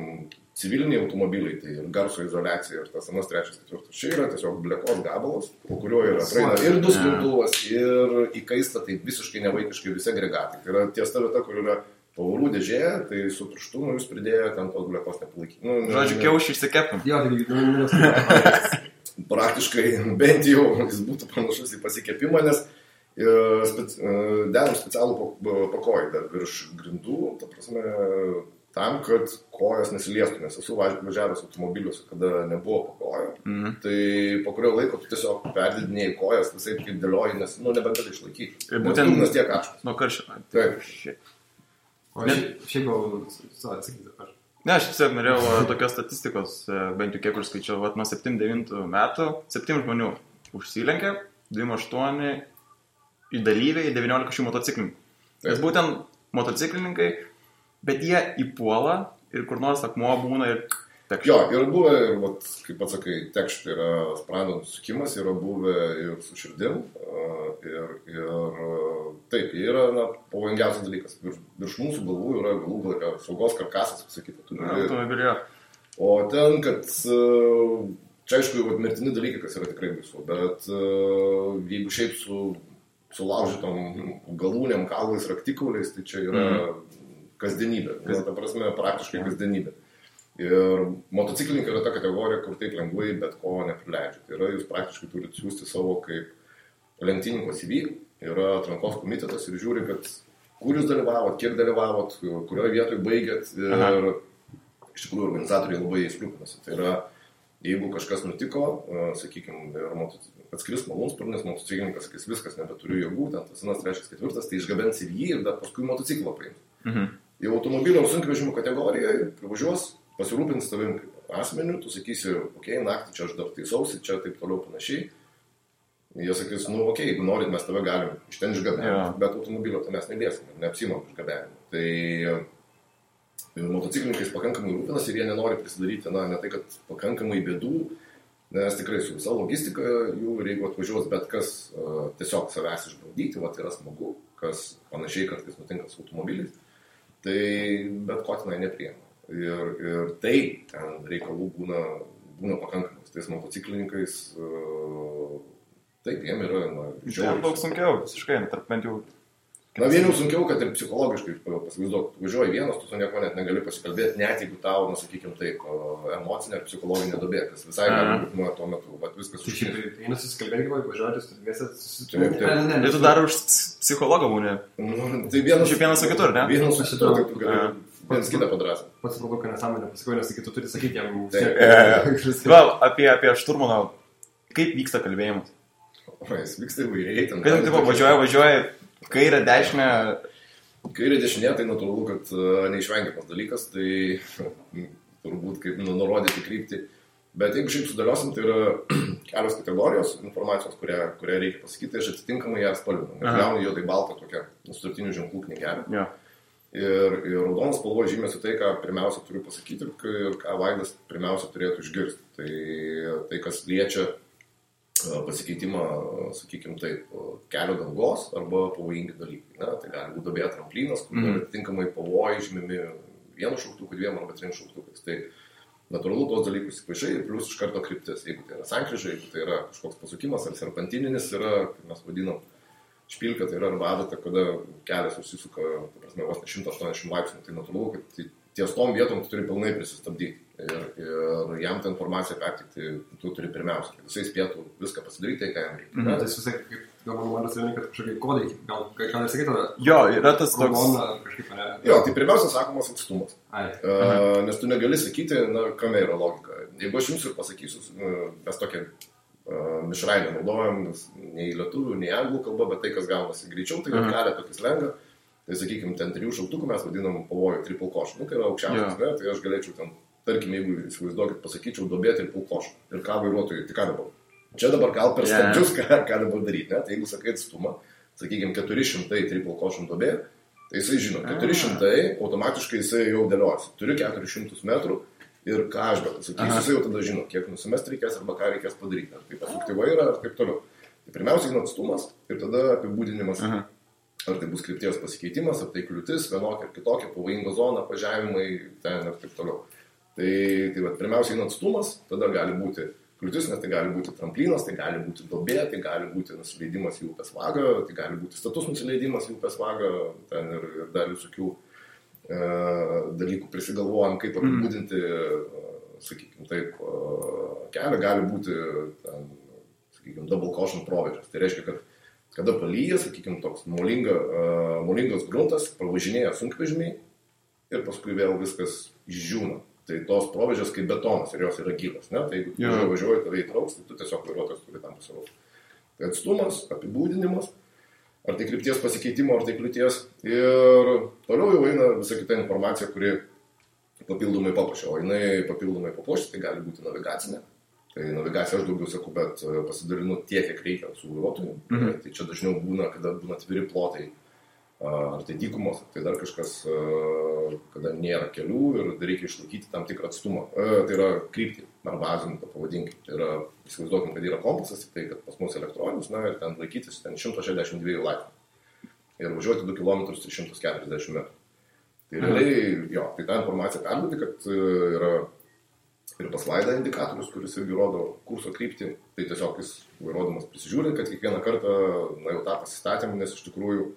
civiliniai automobiliai, tai ir garso izoliacija ir tas anas 3-4. Čia yra tiesiog blekos gabalas, po kurio yra praeina ir duslintuvas, ir įkaista, tai visiškai nevaikiškai visi agregatai. Tai yra ties ta vieta, kur yra pavarų dėžė, tai su pirštu jūs pridėjo ten tos blekos nepalaikyti. Žodžiu, kiaušį išsikepim. Praktiškai bent jau jis būtų panašus į pasikepimą, nes dedam specialų pakojį dar virš grindų, ta prasme, tam, kad kojas nesiliestų, nes esu važiavęs automobiliuose, kada nebuvo pakojo. Tai po kurio laiko tu tiesiog perdidinėjai kojas, visai kaip dėlioji, nes nebegali išlaikyti. Būtent nes tiek karštas. Nuo karščio. Taip. O šiaip gal atsakyti aš. Ne, aš tiesiog norėjau tokios statistikos, bent jau kiek skaičiau, nuo 7-9 metų 7 žmonių užsilenkė, 28 į dalyviai, 19 šių motociklininkų. Nes būtent motociklininkai, bet jie įpuola ir kur nors akmuo būna ir tekšt. Jo, yra buvę, kaip pats sakai, tekšt yra sprando nusukimas, yra buvę ir su širdim, ir taip, yra pavojingiausias dalykas. Virš mūsų galvų yra galų galą saugos karkasas, sakytų. O ten, kad čia aišku, mirtini dalykai, kas yra tikrai baisu, bet jeigu šiaip su laužytom galūnėm, kaulais, raktikauliais, tai čia yra kasdienybė. Ta prasme, praktiškai kasdienybė. Ir motociklininkai yra ta kategorija, kur taip lengvai bet ko neprileidžia. Tai yra, jūs praktiškai turite siūsti savo kaip lenktyninko CV, yra atrankos komitetas ir žiūri, kad kur jūs dalyvavot, kiek dalyvavot, kurioje vietoje baigėt ir iš tikrųjų organizatoriai labai įskrūpinasi. Tai yra, jeigu kažkas nutiko, sakykime, atskris malūnsparnis, motociklininkas sakys, viskas, nebeturiu jėgų, ten tas 3-4, tai išgabens CV ir dar paskui motociklą paims. Jau automobilio sunkvežimio kategorijoje privažiuos, pasirūpins tavim kaip asmeniu, tu sakysi, naktį čia aš dar taisausi, čia taip toliau panašiai. Jie sakys, jeigu norit, mes tave galim iš ten išgabenti, bet automobilio tai mes neliesim, neapsimam išgabenimu. Tai motociklininkais pakankamai rūpinas ir jie nenori prisidaryti, ne tai, kad pakankamai bėdų, nes tikrai su visa logistika jų ir jeigu atvažiuos bet kas tiesiog savęs išbandyti, yra smagu, kas panašiai kartais nutinka su automobiliais, tai bet ko tenai nepriima. Ir tai ten reikalų būna pakankamas. Tais motociklininkais taip, jiem yra žiauriai. Daug sunkiau, visiškai, bent jau. Vieniau sunkiau, kad ir psichologiškai pasivaizduok, važiuoji vienas, tu su nieko net negali pasikalbėti, net jeigu tau, sakykime taip, emocinė ar psicologinė duobė, kas visai gali būti tuo metu, bet viskas užkirti. Tai eina susikalbėti, važiuoti, studijėsi, susitūrėti. Ir tu dar už psichologą būni. Tai vienas su kitur, ne? Vienas su kitur, tai tu gali vienas kitą padrasą. Pats supratau, kad nesąmonė pasakau, nes tu turi sakyti jam. Gal, apie šturmaną, kaip vyksta kalbėjimas? Jis vyksta įvairiai. Kaip važiuoja, Kairė, dešinė. Kairė, dešinė, tai natūralu, kad neišvengiamas dalykas, tai turbūt kaip nurodyti kryptį. Bet jeigu šiaip sudėliosim, tai yra kelios kategorijos informacijos, kurią reikia pasakyti, aš atitinkamai ją spalvinu. Gaunu juodai baltą tokią sutartinių ženklų knygelę. Ja. Ir raudonas spalva žymėsi tai, ką pirmiausia turiu pasakyti ir ką Vaidas pirmiausia turėtų išgirsti. Tai kas liečia pasikeitimą, sakykime taip, kelio dangos arba pavojingi dalykai. Na, tai gali būti duobė tramplinas, kur atitinkamai pavojai žymimi vienu šauktuku, dviem arba trim šauktukais. Tai natūralu tos dalykus įpaišai ir plius iš karto kryptis. Jeigu tai yra sankryža, jeigu tai yra kažkoks pasukimas ar serpantininis yra, kaip mes vadinam, špilka, tai yra arba adata, kada kelias užsisuka, vos ne 180 laipsnių, tai natūralu, kad ties tom vietom tu turi pilnai prisistabdyti. Ir jam tą informaciją pertikti tu turi pirmiausia, kad jisai spėtų viską pasidaryti, tai ką jam reikia. Tai jis visai, kaip gal man atsivėmė, kad kažkokie kodai, gal nesakytų, jo, yra tas toks. Kažkaip, ne? Jo, tai pirmiausia sakomas atstumas. Nes tu negali sakyti, na, kame yra logika. Jeigu aš jums ir pasakysiu, mes tokią mišrainę naudojam, nei lietuvių, nei anglų kalba, bet tai, kas gaunasi greičiau, tai kelia tokį slengą. Tai sakykime, ten 3 šauktukų mes vadinam pavojų triple caution. Tai yra aukščiausias, ne? Tai aš galėčiau ten, tarkim, jeigu įsivaizduokit, pasakyčiau duobė triple caution. Ir ką vairuotojai, tai ką dabar? Čia dabar gal per stabdžius, ką dabar daryti, ne? Tai jeigu sakai atstumą, sakykime, 400 triple caution duobė, tai jisai žino, 400 automatiškai jisai jau dėliojasi. Turiu 400 metrų ir ką aš bet sakysiu, jisai jau tada žino, kiek nusimest reikės arba ką reikės padaryti. Ar tai pasukti vairą, ar taip toliau. Tai pirmiausia, atstumas ir tada apibūdinimas. Ar tai bus krypties pasikeitimas, ar tai kliūtis, vienokia ar kitokia, pavojinga zona, važiavimai, ten ir taip toliau. Tai pirmiausiai atstumas, tada gali būti kliūtis, nes tai gali būti tramplinas, tai gali būti duobė, tai gali būti nusileidimas į upės vagą, tai gali būti status nusileidimas į upės vagą, ten ir dar visokių dalykų prisigalvojam, kaip apibūdinti, sakykime taip, kelią, gali būti, ten, sakykime, double caution proveržas. Tai reiškia, kad kada palyja, sakykime, toks molingas gruntas, pravažinėja sunkvežimiai ir paskui vėl viskas išdžiūna. Tai tos provežės kaip betonas ir jos yra gyvas. Ne? Tai jeigu tu važiuoji, tave įtrauks, tai tu tiesiog vairuotojas turi tam pasiruošti. Tai atstumas, apibūdinimas, ar tai krypties pasikeitimo, ar tai kliūties. Ir toliau jau eina visa kita informacija, kuri papildomai papuošia. O jinai papildomai papuošia, tai gali būti navigacinė. Tai navigacija aš daugiau sakau, bet pasidalinu tiek, kiek reikia su vairuotoju. Tai čia dažniau būna, kada būna atviri plotai, ar tai dykumos, ar tai dar kažkas, kada nėra kelių ir reikia išlaikyti tam tikrą atstumą. Tai yra kryptį, ar bazinį, to pavadinkim. Tai yra, įsivaizduokim, kad yra kompasas, tik tai, kad pas mus elektroninis, na ir ten laikytis ten 162 laipsnių. Ir važiuoti 2 km 340 metrų. Tai realiai, jo, tai tą informaciją perduoti, kad yra ir pas Vaidą indikatorius, kuris irgi rodo kurso kryptį, tai tiesiog jis vairuodamas prisižiūri, kad kiekvieną kartą, na jau tą pasistatėm, nes iš tikrųjų,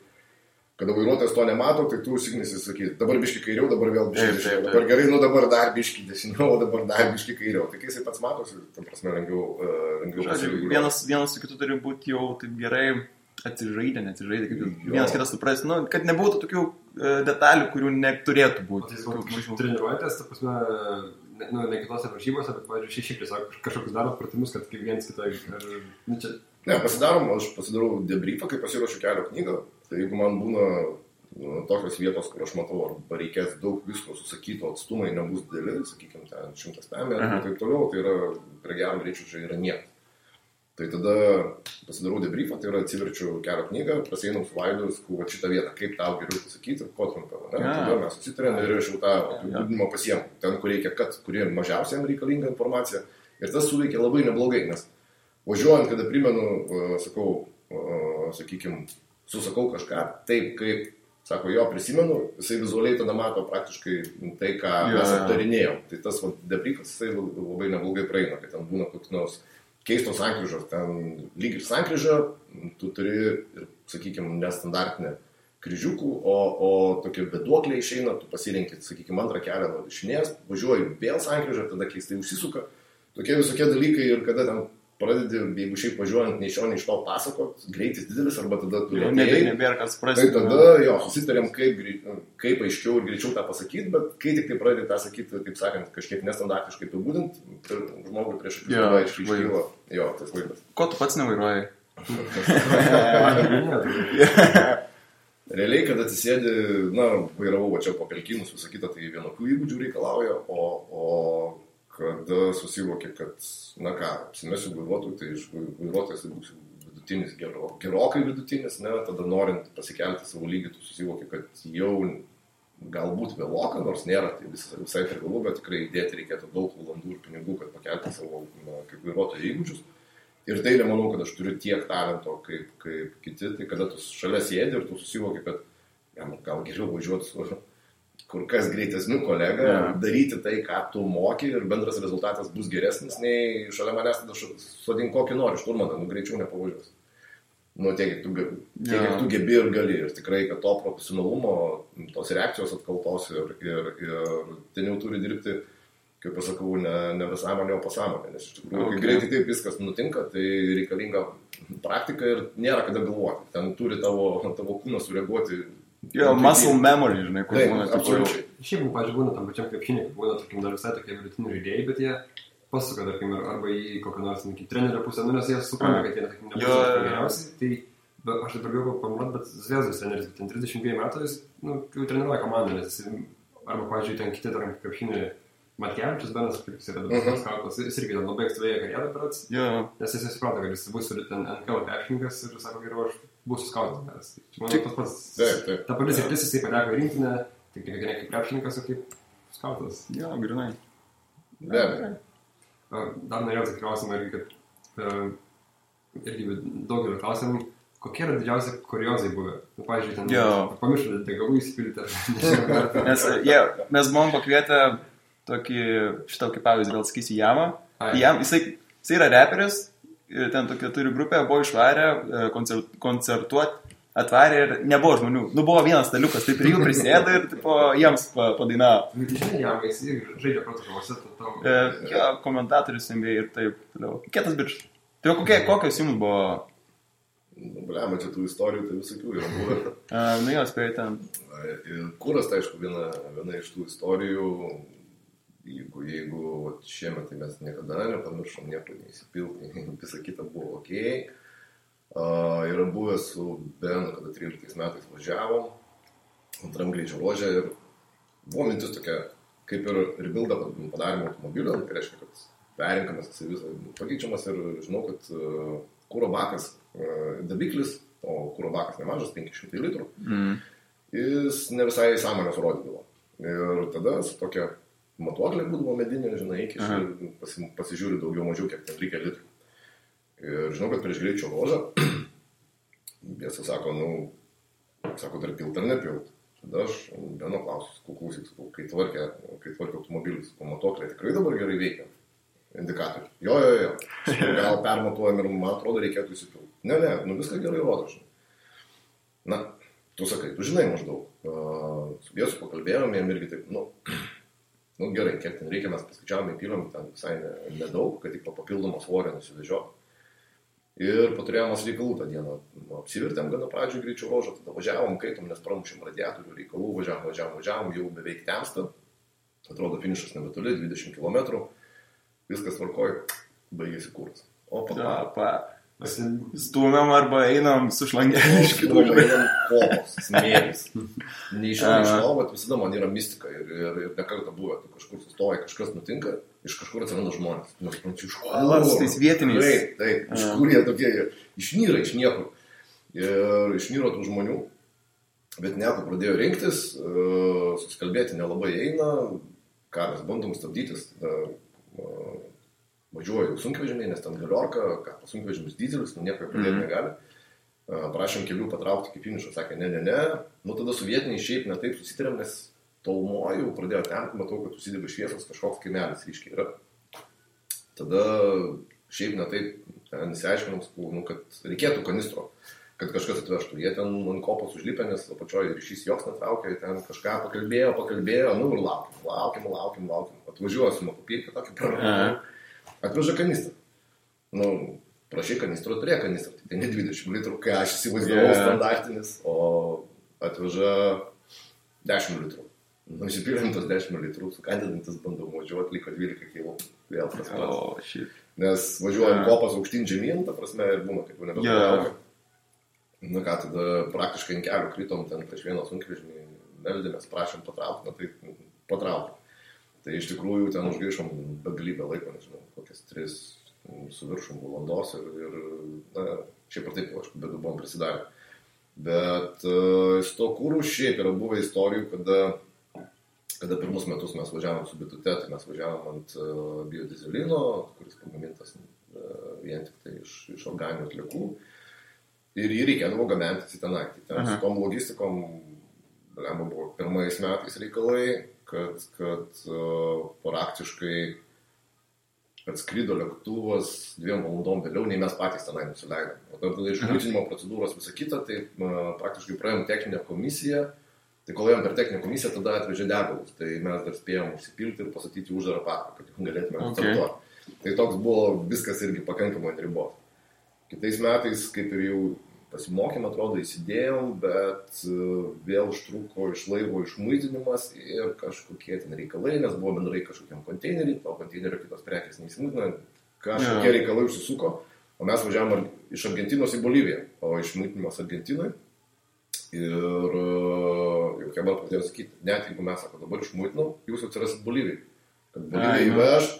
kada vairuotojas to nemato, tai tu užsignesi sakyti, dabar biški kairiau, dabar vėl biški dešiniau, dabar gerai, nu dabar dar biški dešiniau, dabar dar biški kairiau. Tai kai jisai pats matosi, tam prasme lengviau pasižiūrėti. Vienas su kitu turi būti jau taip gerai atsižaidę, kaip vienas kitas supras, nu, kad nebūtų tokių detalių, kurių neturėtų būti. Treniruojatės, ta prasme, ne kitose varžybose, bet, pavyzdžiui, šiaip tiesiog kažkokius darot pratimus, kad kaip vienas kitą... Ne, aš pasidarau debriefą, kai pasiruošiu kelio knygą. Tai jeigu man būna tokios vietos, kur aš matau, arba reikės daug visko susakyto, atstumai nebus dideli, sakykime, ten 100 metrų ir taip toliau, tai yra prie gero greičio čia yra niekas. Tai tada pasidarau debriefą, tai yra atsiverčiu kelio knygą, prasieinam su Vaidu, sakau, šitą vietą, kaip tau geriau pasakyti, ko trumpiau. Tada mes susitarėm ir aš jau tą apibūdinimą pasiemu. Ten, kur reikia, kuri mažiausiai reikalinga informacija. Ir tas suveikia labai neblogai, nes važiuojant, kada primenu, susakau kažką, taip kaip, sako, jo prisimenu, jisai vizualiai tada mato praktiškai tai, ką mes aptarinėjom. Tai tas debriefas, jisai labai neblogai praeina, kad ten būna koks nors keistos sankryžos, ten lyg ir sankryža, tu turi ir, sakykime, nestandartinę kryžiukų, o tokie beduokliai išeina, tu pasirinki, sakykime, antrą kelią nuo dešinės, važiuoji vėl sankryžą, tada keistai užsisuka, tokie visokie dalykai ir kada ten pradedi, jeigu šiaip važiuojant nei iš to pasakot, greitis didelis, arba tada tu nebėra kas suprasti. Tai tada, susitarėm, kaip aiškiau ir greičiau tą pasakyti, bet kai tik tai pradedi tą sakyti, taip sakant, kažkiek nestandartiškai apibūdint, žmogui prieš akis iškyla tas vaizdas. Ko tu pats nevairuoji? realiai, kad atsisėdi, vairavau va čia po pelkinus, visą kitą, tai vienokių įgūdžių reikalauja, o kada susivoki, kad, apsimesiu vairuotojų, tai iš vairuotojas tai būsiu vidutinis, gerokai vidutinis, tada norint pasikelti savo lygį, tu susivoki, kad jau galbūt vėloka, nors nėra, tai visai privalu, bet tikrai įdėti reikėtų daug valandų ir pinigų, kad pakelti savo kaip vairuotojo įgūdžius. Ir tai nemanau, kad aš turiu tiek talento kaip kiti, tai kada tu šalia sėdi ir tu susivoki, kad gal geriau važiuoti su kur kas greitesniu kolega, daryti tai, ką tu moki ir bendras rezultatas bus geresnis, nei šalia manęs tada sodink kokį nori, šturmaną, greičiau nepavažiuos. Tiek, kiek tu gebi ir gali. Ir tikrai, kad to profesionalumo, tos reakcijos atkaltos ir ten jau turi dirbti, kaip pasakau, ne visąmonė, o pasąmonė. Nes iš tikrųjų, kai greitai taip viskas nutinka, tai reikalinga praktika ir nėra kada galvoti. Ten turi tavo kūnas sureaguoti. Muscle memory, žinai, kur taip, būna. Absoliučiai. Šiaip, pavyzdžiui, būna tam pačiam krepšinį, būna, tarkim, dar visai tokie vidutiniai žaidėjai, bet jie pasuka, tarkim, arba į kokią nors trenerio pusę, nes jie supranta, kad jie, tarkim, nebus geriausiai. Tai aš taip daugiau pamatau, bet Zvezdos treneris, ten 32 metų, jis, jau treniruoja komandą, nes jis, arba, pavyzdžiui, ten kiti, tarkim, krepšinį Matkevičius, Benas, kaip jis yra dabar skautas, jis irgi ten labai ankstyvėja karjerą berods, nes jis supranta, kad jis bus ten NKL krepšininkas ir sako, geriau aš būsiu skautas. Manau, tas pats, ta pati sritis jisai pateko į rinktinę, tik ne kaip krepšininkas, o kaip skautas. Jo, grinai. Be abejo. Dar norėjau tą klausimą irgi, kad irgi daugelio klausimų, kokie yra didžiausi kuriozai buvę? Pavyzdžiui, ten pamiršau degalų įsipilti. Nes mes buvom pakvietę šitą kaip pavyzdį, gal sakysiu, Jamą. Jisai yra reperis, ten tokia turi grupę, buvo išvarę koncertuoti, atvarė ir nebuvo žmonių. Buvo vienas staliukas, taip ir jų prisėdo ir jiems padainavo. Žinai, Jamą, jis irgi žaidžia protokolose. Komentatorius NBA ir taip toliau. Kietas bičas. Tai kokios jums buvo? Blema, čia tų istorijų, tai visokių yra buvę. Jo, spėjai ten. Kuras, tai aišku, viena iš tų istorijų, jeigu šiemet tai mes niekada nepamiršom, nieko neįsipilti, visą kitą buvo ok. Yra buvę su Benu, kada 13 metais važiavom, antram greičio ruože ir buvo mintis tokia, kaip ir rebuildą padarėme automobilio, tai reiškia, kad perinkamas jisai visą pakeičiamas ir žinau, kad kuro bakas dabiklis, o kuro bakas nemažas, 500 litrų, jis ne visai sąmonės rodydavo. Ir tada su tokia matuoklė būdavo medinė, žinai, pasižiūri daugiau mažiau, kiek ten reikia litrų. Ir žinau, kad prieš greičio ruožą, jie sako, dar pilt ar nepilt. Tada aš Beno klausiu, kai tvarkė automobilis, matuoklė tikrai dabar gerai veikia. Indikatorių. Jo. Gal permatuojam ir man atrodo reikėtų įsipilti. Ne, viską gerai rodo, žinai. Tu sakai, tu žinai maždaug. Su Jėzu pakalbėjom, jam irgi taip, gerai, kiek ten reikia, mes paskaičiavome, įpylėm ten visai nedaug, kad tik papildomą svorį nusivežio. Ir paturėjom reikalų tą dieną. Apsivirtėm gana pradžių greičio ruožą, tada važiavom, kaitom, nes pramušėm radiatorių reikalų, važiavom, jau beveik temsta. Atrodo, finišas nebetoli, 20 km. Viskas tvarkoj, baigėsi kuras. O Stūmiam arba einam su šlangelė iš kitų. Einam kopos, smėlis. Neišėjau iš to, bet visada man yra mistika ir nekartą buvę. Tu kažkur sustoji, kažkas nutinka, iš kažkur atsiranda žmonės. Nesuprantu, iš kur. Tais vietiniais. Taip, iš kur jie tokie, išnyra iš niekur. Ir išnyro tų žmonių, bet nieko pradėjo rinktis, susikalbėti nelabai eina, ką mes bandom stabdytis, važiuoju sunkvežimiai, nes ten galiorka, sunkvežimis dizelis, nieko pradėti negali. Prašėm kelių patraukti iki finišo, sakė, ne. Tada su vietiniai šiaip ne taip susitarėm, nes tolumojau, pradėjo temti, matau, kad susidega šviesos, kažkoks kaimelis ryškiai yra. Tada šiaip ne taip nesiaiškinom, kad reikėtų kanistro, kad kažkas atvežtų. Jie ten ant kopos užlipė, nes apačioje ryšys joks netraukė, ten kažką pakalbėjo, ir laukim. Atvažiuoju su makupirkė tokį praradimą. Atveža kanistrą. Prašai kanistro, turėjo kanistrą. Tai ne 20 litrų, kai aš įsivaizdavau standartinis, o atveža 10 litrų. Įsipylėm tos 10 litrų, sukandidantis bandau važiuoti, liko 12 kg. Vėl tas pats. Nes važiuojam kopas aukštyn žemyn, ta prasme, ir būna, kaip jau nebetraukia. Nu ką, tada praktiškai ant kelių kritom ten prieš vieną sunkvežimį, meldėmės, prašėm patraukti, na tai patraukti. Tai iš tikrųjų ten užgaišom begalybę laiko, nežinau, kokias 3 su viršum valandos ir na, šiaip ar taip, aišku, bet buvom prisidarę. Bet su to kūrų šiaip yra buvę istorijų, kada pirmus metus mes važiavom su bitute, tai mes važiavom ant biodizelino, kuris pagamintas vien tik tai iš organinių atliekų. Ir jį reikėdavo gabenti į tenai. Ten su tom logistikom buvo pirmais metais reikalai, kad praktiškai atskrido lėktuvas 2 valandom vėliau, nei mes patys tenai nusileidom. O tada iš muitinimo procedūros visą kitą, tai praktiškai praėjom techninę komisiją. Tai kol ėjom per techninę komisiją, tada atvežė degalus. Tai mes dar spėjom užsipilti ir pasatyti uždarą paką, kad galėtume startuoti. Tai toks buvo viskas irgi pakankamai ant ribos. Kitais metais, kaip ir jau pasimokėm, atrodo, įsidėjom, bet vėl užtruko iš laivo išmuitinimas ir kažkokie ten reikalai, nes buvo bendrai kažkokiam konteineriui, to konteinerio kitos prekės neįsimuitino, kažkokie reikalai užsisuko, o mes važiavom iš Argentinos į Boliviją, o išmuitinimas Argentinui. Ir jau Kebar pradėjo sakyti, net jeigu mes, sako, dabar išmuitinau, jūs atsirasit Bolivijai. Kad Bolivija įveš,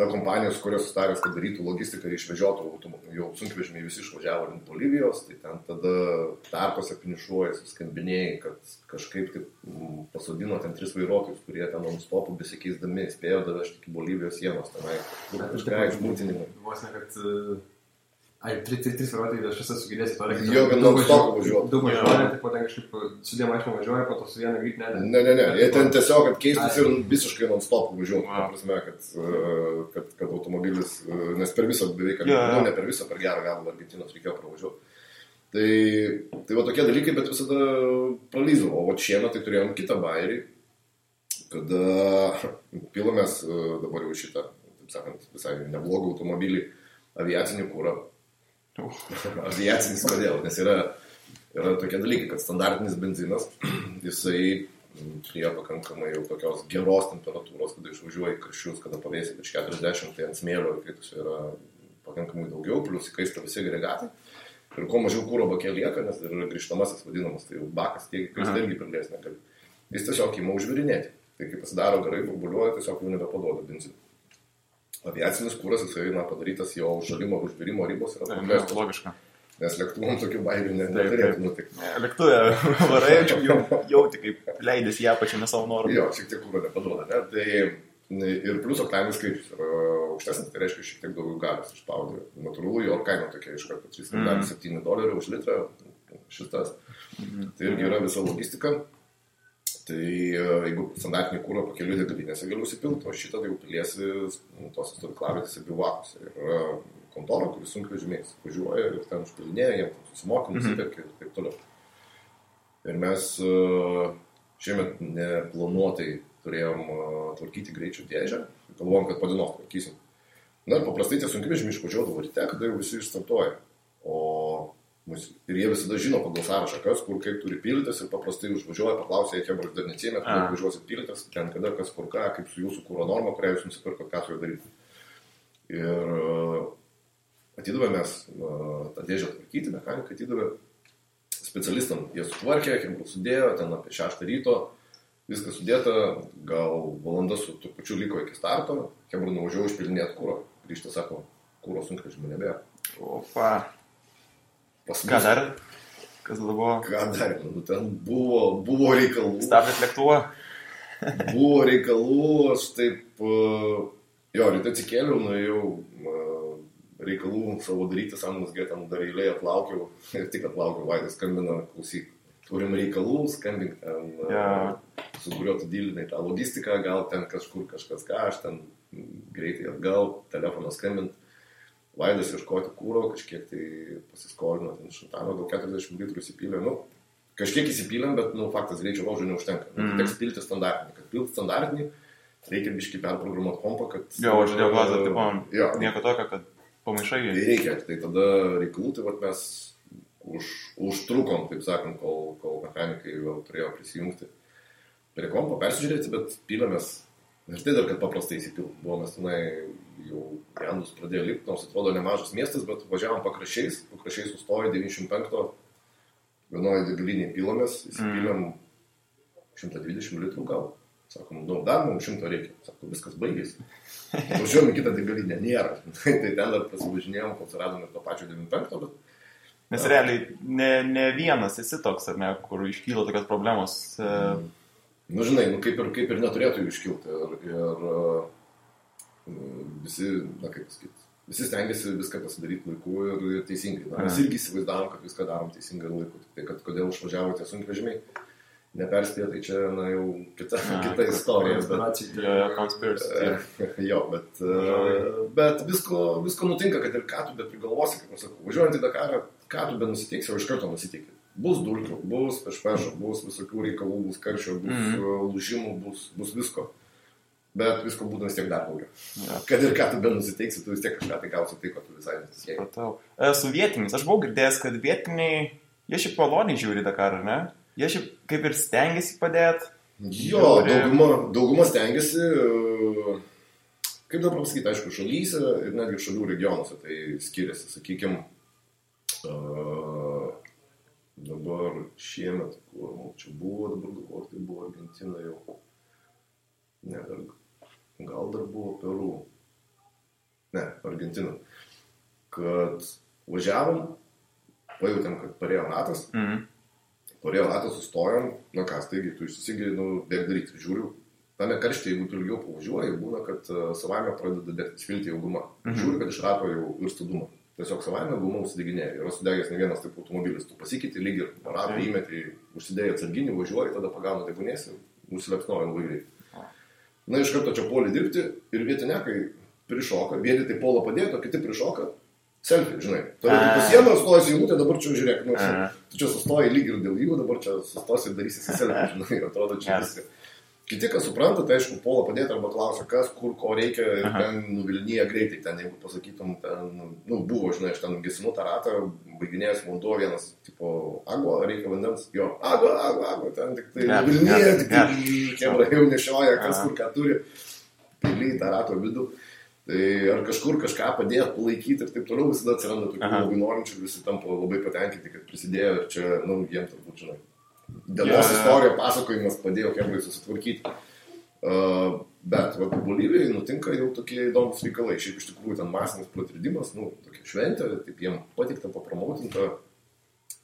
ta kompanija, su kurios sustarės, kad darytų logistiką ir išvežiotų jau sunkvežimiai visi išvažiavo link Bolivijos, tai ten tada tarpose finišuoja, suskambinėjai, kad kažkaip taip pasodino ten 3 vairuotojus, kurie ten non-stopų besikeisdami spėjo davežti iki Bolivijos sienos tenai. Kažką išmūtinimai. Vos ne, kad... Ai, 3 vairuotojai, aš visą sugėdėsiu to reikia. Jo, kad non-stopų važiuoja. Daug važiuoja, tai po ten kažkaip su 2 mašinom važiuoja, po to su viena greit ne. Ne, jie ten tiesiog, kad keistus ir visiškai non-stopų važiuoja. Ta prasme, kad automobilis, nes per visą beveik, ne per visą, per gerą galą Argentinos reikėjo pravažiuoti. Tai va tokie dalykai, bet visada pralysdavo. O šiemet tai turėjom kitą bairį, kada pilomės dabar jau šitą, taip sakant, visai neblogą automobilį, aviacinį kūrą. Aviacinis kodėl? Nes yra tokie dalykai, kad standartinis benzinas, jisai prie pakankamai jau tokios geros temperatūros, kada išvažiuoja į karščius, kada pavėsi virš 40, tai ant smėlio įkaitusio yra pakankamai daugiau, plus įkaista visi agregatai. Ir kuo mažiau kūro bakė lieka, nes yra grįžtamasis vadinamas, tai jau bakas tiek įkaista irgi pridės negali. Jis tiesiog įma užvirinėti. Tai kai pasisidaro garai, burbuliuoja, tiesiog jau nebepaduoda benziną. Aviacinis kūras, jisai padarytas jo užšalimo ir užvirimo ribos yra paprastas. Logiška. Nes lėktuvom tokių bairių neturėtų nutikti. Lėktuvė varai, jauti, kaip leidėsi ją pačiame savo norų. Jo, šiek tiek kūro nepaduoda, ne? Tai ir plius oktaninis skaičius yra aukštesnis, tai reiškia šiek tiek daugiau galios išspaudė. Natūralu, jo kaina tokia iš karto $3,7 už litrą šitas. Tai irgi yra visa logistika. Tai jeigu standartinį kūrą pakelių degalinėse galiu įsipilti, o šitą tai jau piliesi tos stovyklavietėse bivakuose. Ir kontora, kuris sunkvežimiais važiuoja ir ten užpilinėja, jiems susimokam, nusipirkia ir taip toliau. Ir mes šiemet neplanuotai turėjom tvarkyti greičio dėžę, galvojom, kad po dienos tvarkysim. Na ir paprastai tie sunkvežimiai išvažiuodavo ryte, kada jau visi išstartuoja. Ir jie visada žino pagal sąrašą, kas, kur, kaip turi pildytis ir paprastai užvažiuoja, paklausia, jie dar neatsėmė, kada važiuosit pildytis, ten kada, kas, kur, ką, kaip su jūsų kūro norma, kurią jūs nusipirkot, ką su juo daryti. Ir atidavė mes tą dėžę tvarkyti, mechanikai atidavė specialistam, jie sutvarkė, kiek sudėjo, ten apie 6 ryto, viskas sudėta, gal valanda su trupučiu liko iki starto, Hebra nuvažiavo išpilinėti kūro, grįžta, sako, kūro sunkvežimio nebėra. Opa. Ką dar? Kas buvo? Ką dar? Nu, ten buvo reikalų. Stabdėt lėktuvą? Buvo reikalų, aš taip, ryte atsikėliau, nuėjau reikalų savo daryti, samnusgė ten dar eilėje atlaukiau, ir tik atlaukiau, Vaidas skambina, klausyk, turim reikalų, skambink ten, su kuriuo tu dylinai tą logistiką, gal ten kažkur kažkas ką, aš ten greitai atgal, telefoną skambint. Vaidas ieškoti kūro, kažkiek tai pasiskolino, ten šantano, gal 40 litrų įsipylė, kažkiek įsipylėm, bet, faktas, greičio laužo neužtenka. Teks pilti standartinį, kad pilti standartinį, reikia biškį perprogramuoti kompą, kad... Jo, aš dėl glazą, taip, nieko tokio, kad pamaišai. Tai reikia, tai tada reikalų, tai mes užtrukom, taip sakant, kol mechanikai vėl turėjo prisijungti prie kompo, persižiūrėti, bet pylėmės. Ir tai dar, kad paprastai įsipilti. Buvomės tenai jau Jandus pradėjo lipti, nors atrodo nemažas miestas, bet važiavom pakraščiais sustojo 95 vienoje degalinėje pilomės, įsipylėm 120 litrų gal. Sakom, dar mums 100 reikia. Sakom, viskas baigėsi. Važiuojam į kitą degalinę, nėra. Tai ten dar prasivažinėjom, kol suradom ir to pačio 95, bet... Nes realiai ne vienas esi toks, ar ne, kur iškyla tokios problemos. Nu, žinai, kaip ir neturėtų jų iškilti. Ir visi, kaip pasakyti, visi stengiasi viską pasidaryti laiku ir teisingai. Mes irgi įsivaizdavom, kad viską darom teisingai laiku. Tai kad kodėl išvažiavo tie sunkvežimiai, neperspėjo, tai čia, jau kita istorija. Bet visko nutinka, kad ir ką tu prigalvosi, kaip aš sakau, važiuojant į Dakarą, ką tu nusiteiksi, o iš karto nusiteiki. Bus dulkių, bus pešpešo, bus visokių reikalų, bus karščio, bus lūžimų, bus visko. Bet visko būtų vis tiek dar daugiau. Kad ir ką tu nusiteiksi, tu vis tiek kažką tai gausi tai, ko tu visai nesisieki. Su vietiniais, aš buvau girdėjęs, kad vietiniai, jie šiaip maloniai žiūri Dakarą, ne? Jie šiaip kaip ir stengiasi padėti. Jo, dauguma stengiasi, kaip dabar pasakyti, aišku, šalyse ir netgi šalių regionuose tai skiriasi. Sakykime, dabar šiemet, kur čia buvo, dabar galvoju, tai buvo Argentina jau. Ne, gal dar buvo Peru. Ne, Argentina. Kad važiavom, pajutėm, kad parėjo ratas. Parėjo ratas, sustojom, taigi tu išsisigi, bėg daryti. Žiūriu, tame karštyje, jeigu tu ilgiau pavažiuoji, būna, kad savaime pradeda degti svilti jau guma. Žiūriu, kad iš rato jau virsta duma. Tiesiog savaime guma užsideginėja. Yra sudegęs ne vienas taip automobilis. Tu pasikeiti lyg ir ratą įmetį, užsidėjai atsarginį, važiuoji, tada pagauna degunėsi, nusilepsnoja labai greitai. Iš karto čia puolė dirbti ir vietinekai prišoka, vieni tai puolą padėto, kiti prišoka, selfie, žinai. Tada tu pasiemą, stojasi eilutė, dabar čia žiūrėk, tu čia sustoji lyg ir dėl jų, dabar čia sustosi ir darysi selfie, žinai, atrodo čia viską. Kiti, kas supranta, tai aišku, puolą padėti arba klausia, kas, kur, ko reikia ir ten nuvilnyja greitai, ten, jeigu pasakytum, ten, buvo, žinai, aš ten gesinu tą ratą, baiginėjęs vanduo vienas, tipo, agua, reikia vandens, jo, agua, ten tik tai nuvilnyja, tik tai kemra jau nešioja, kas kur ką turi, pili tą rato vidų, tai ar kažkur kažką padėti, palaikyti ir taip toliau, visada atsiranda tokių labai norinčių ir visi tampa labai patenkinti, kad prisidėjo ir čia, jiem turbūt, žinai. Dienos istorijo pasakojimas padėjo kemrai susitvarkyti. Bet Bolivijai nutinka jau tokie įdomus reikalai. Šiaip iš tikrųjų ten masinis pratridimas, tokia šventė, taip jiem patikta, papromautinta.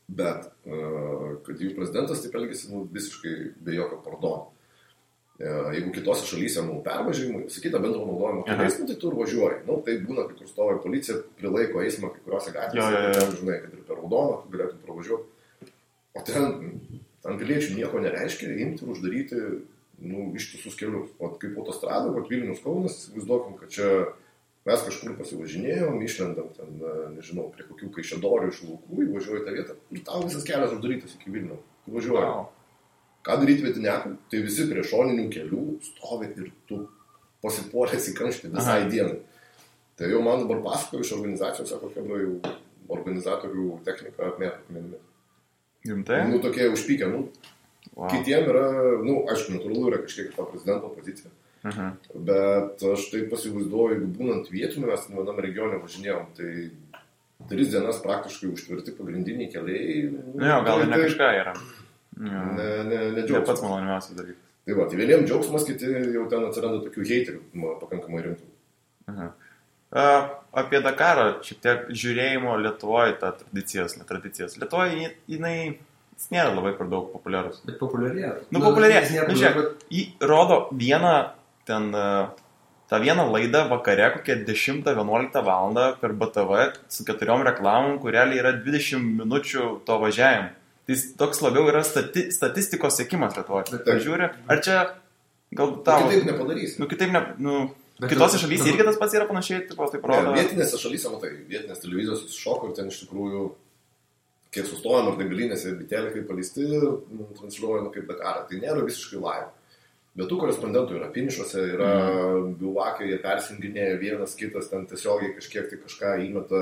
Bet kad jų prezidentas taip elgėsi visiškai be jokio pardono. Jeigu kitose šalyse pervažiavimai, sakyta bendro naudojimo keliais, tai tu ir važiuoji. Tai būna, kai kur stovi policija, prilaiko eismą kai kuriuose gatvėse, žinai, kad ir per raudoną tu galėtum pravažiuoti. O ten piliečių nieko nereiškia, imti ir uždaryti ištisus kelius. O kaip autostrada, Vilnius Kaunas, įsivaizduokim, kad čia mes kažkur pasivažinėjom, išlendam ten, nežinau, prie kokių kaišiadorių iš laukų, įvažiuoji tą vietą ir tau visas kelias uždarytas iki Vilnių. Važiuoji. Ką daryti vietiniekui? Tai visi prie šoninių kelių stovi ir tu pasipuolės į kamštį visai dienai. Tai jau man dabar pasakoju iš organizacijos, sako, kad jau organizatorių technika apmėto akmenimis. Rimtai? Tokie užpykę, Kitiem yra, aišku, natūralu yra kažkiek to prezidento pozicija. Bet aš taip pasivaizduoju, jeigu būnant vietiniu, mes vienam regione važinėjom, tai 3 dienas praktiškai užtvirti pagrindiniai keliai. Gal ir ne kažką yra. Ne džiaugsmas. Ne pats maloniausias dalykas. Tai vieniem džiaugsmas, kiti jau ten atsiranda tokių heiterių pakankamai rimtų. Apie Dakarą, šiek tiek žiūrėjimo Lietuvoje tą tradicijas. Lietuvoje jis nėra labai per daug populiarus. Bet populiarėja. Populiarėja. Jį rodo tą vieną laidą vakare, kokią 10-11 valandą per BTV su 4 reklamom, kur realiai yra 20 minučių to važiavimo. Tai toks labiau yra statistikos sekimas Lietuvoje. Pažiūrė, ar čia gal tavo... Kitaip nepadarysi. Kitose šalyse irgi tas pats yra panašiai, taip rodo. Vietinėse šalyse, vietinės televizijos iššoko ir ten iš tikrųjų, kiek sustojom ar degalinėse ir bitėlė kaip paleisti, transliuoja kaip Dakarą. Tai nėra visiškai live. Bet tų korespondentų yra finišuose, yra bivakai, jie persinginėja vienas kitas, ten tiesiogiai kažkiek tai kažką įmeta,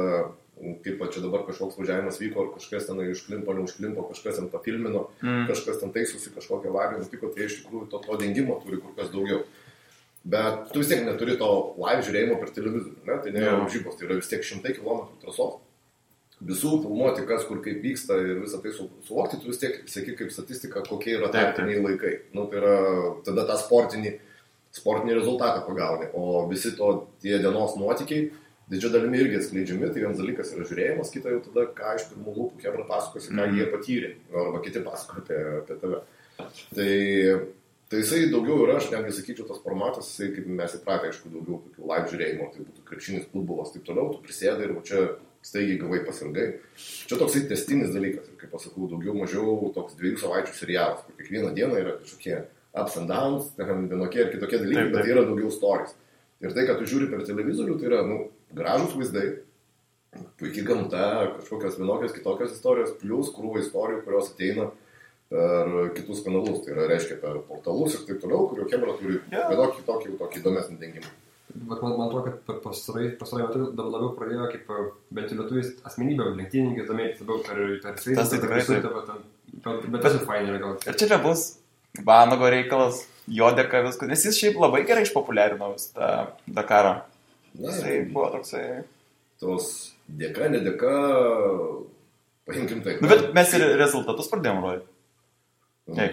kaip čia dabar kažkoks važiavimas vyko, ar kažkas ten užklimpo, neužklimpo, kažkas ten pafilmino, kažkas ten taisosi, kažkokią avariją nutiko, tai iš tikrųjų to dengimo turi kur kas daugiau. Bet tu vis tiek neturi to live žiūrėjimo per televizorių, ne? Tai nėra varžybos, tai yra vis tiek 100 km trasos. Visų filmuoti, kas kur kaip vyksta ir visą tai suvokti, tu vis tiek seki kaip statistika, kokie yra tarpiniai laikai. Nu, tai yra tada tą sportinį rezultatą pagauni, o visi tie dienos nuotykiai didžia dalimi irgi atskleidžiami, tai vienas dalykas yra žiūrėjimas, kita jau tada, ką iš pirmų lūpų Hebra pasakosi, ką jie patyrė, arba kiti pasakoja apie tave. Tai jisai daugiau yra, aš netgi sakyčiau, tas formatas, jisai kaip mes įpratę, aišku, daugiau tokių live žiūrėjimo, tai būtų krepšinis, futbolas, taip toliau, tu prisėdai ir čia staigiai gavai pasirgai. Čia toksai testinis dalykas, ir kaip pasakau, daugiau mažiau toks 2 savaičių serialas, kur kiekvieną dieną yra kažkokie ups and downs, vienokie ir kitokie dalykai, bet yra daugiau stories. Ir tai, kad tu žiūri per televizorių, tai yra gražūs vaizdai, puikiai gamta, kažkokios vienokios kitokios istorijos, plus krūva istorijų, kurios ateina per kitus kanalus, tai yra, reiškia, per portalus ir taip toliau, kurio Hebra turi vienokį tokį įdomesnį dengimą. Bet man atrodo, kad pastarai metu labiau pradėjo kaip bent jau lietuvis asmenybė, lenktynininkai domėtis labiau per sveitą, bet tas ir fainai yra gal. Ir čia bus Vanago reikalas, jo dėka viskas, nes jis šiaip labai gerai išpopuliarino tą Dakarą. Jisai buvo toksai... Tos dėka, nedėka, paimkim tai. Bet mes ir rezultatus pradėjom rodyti. Tai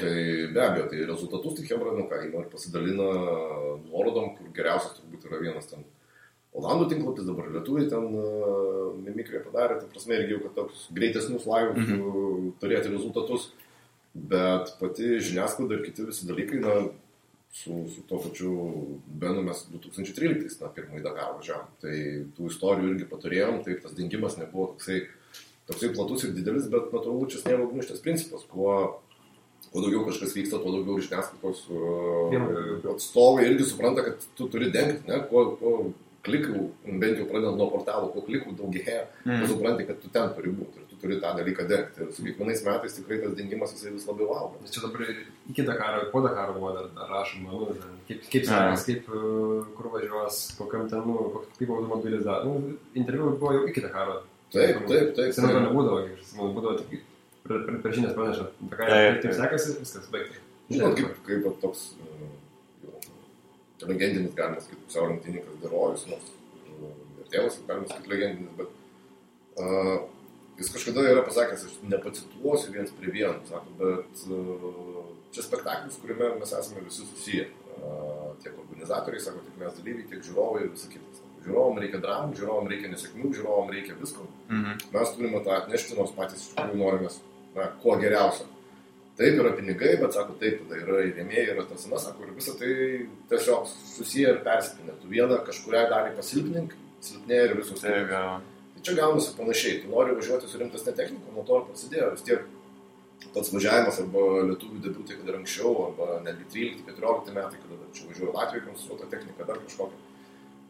be abejo, tai rezultatus tai Hebra, ir pasidalina nuorodom, kur geriausias turbūt yra vienas ten Olandų tinklapis, dabar lietuviai ten mimikriją padarė, tai prasme irgi jau, kad toks greitesnius laivus turėti rezultatus, bet pati žiniasklaida ir kiti visi dalykai, su to pačiu Benu mes 2013 pirmąjį Dakarą važiavom, tai tų istorijų irgi paturėjom, tai tas dingimas nebuvo toksai platus ir didelis, bet natūralu čia sniego gniūžtės principas, kuo daugiau kažkas vyksta, tuo daugiau žiniasklaidos atstovai irgi supranta, kad tu turi dengti, ne, kuo klikų, bent jau pradedant nuo portalo, kuo klikų daugėja, tu supranti, kad tu ten turi būti ir tu turi tą dalyką dengti. Ir su kiekvienais metais tikrai tas dingimas jisai vis labiau auga. Nes čia dabar iki Dakaro, po Dakaro buvo dar rašoma, kaip sekas, kaip kur važiuos, kokiam ten, kaip automobilis dar. Interviu buvo jau iki Dakaro. Taip. Seniau nebūdavo, būdavo tik per žinias praneša, kaip sekasi, viskas baigta. Žinot, kaip toks legendinis, galima sakyti, pusiau lenktynininkas Derojus, ir tėvas, galima sakyti, legendinis, bet jis kažkada yra pasakęs, aš nepacituosiu viens prie vieno, sako, bet čia spektaklis, kuriame mes esame visi susiję, tiek organizatoriai, sako, tiek mes dalyviai, tiek žiūrovai ir visa kitas. Žiūrovom reikia dramų, žiūrovom reikia nesėkmių, žiūrovom reikia visko. Mes turime tą atnešti, nors patys iš tikrųjų norimės kuo geriausio. Taip yra pinigai, bet sako, taip, tada yra ir rėmėjai, yra tas, sako, ir visą tai tiesiog susiję ir persipinę. Tu vieną kažkurią dalį pasilpnink, silpnėja ir visus. Tai čia gaunasi panašiai. Tu nori važiuoti su rimtesne technika, nuo to ir prasidėjo. Vis tiek pats važiavimas arba lietuvių debiutai, kad ir anksčiau, arba netgi 13-14 metai, kada čia važiuoja Latvijai konstruota technika, dar kažkokia.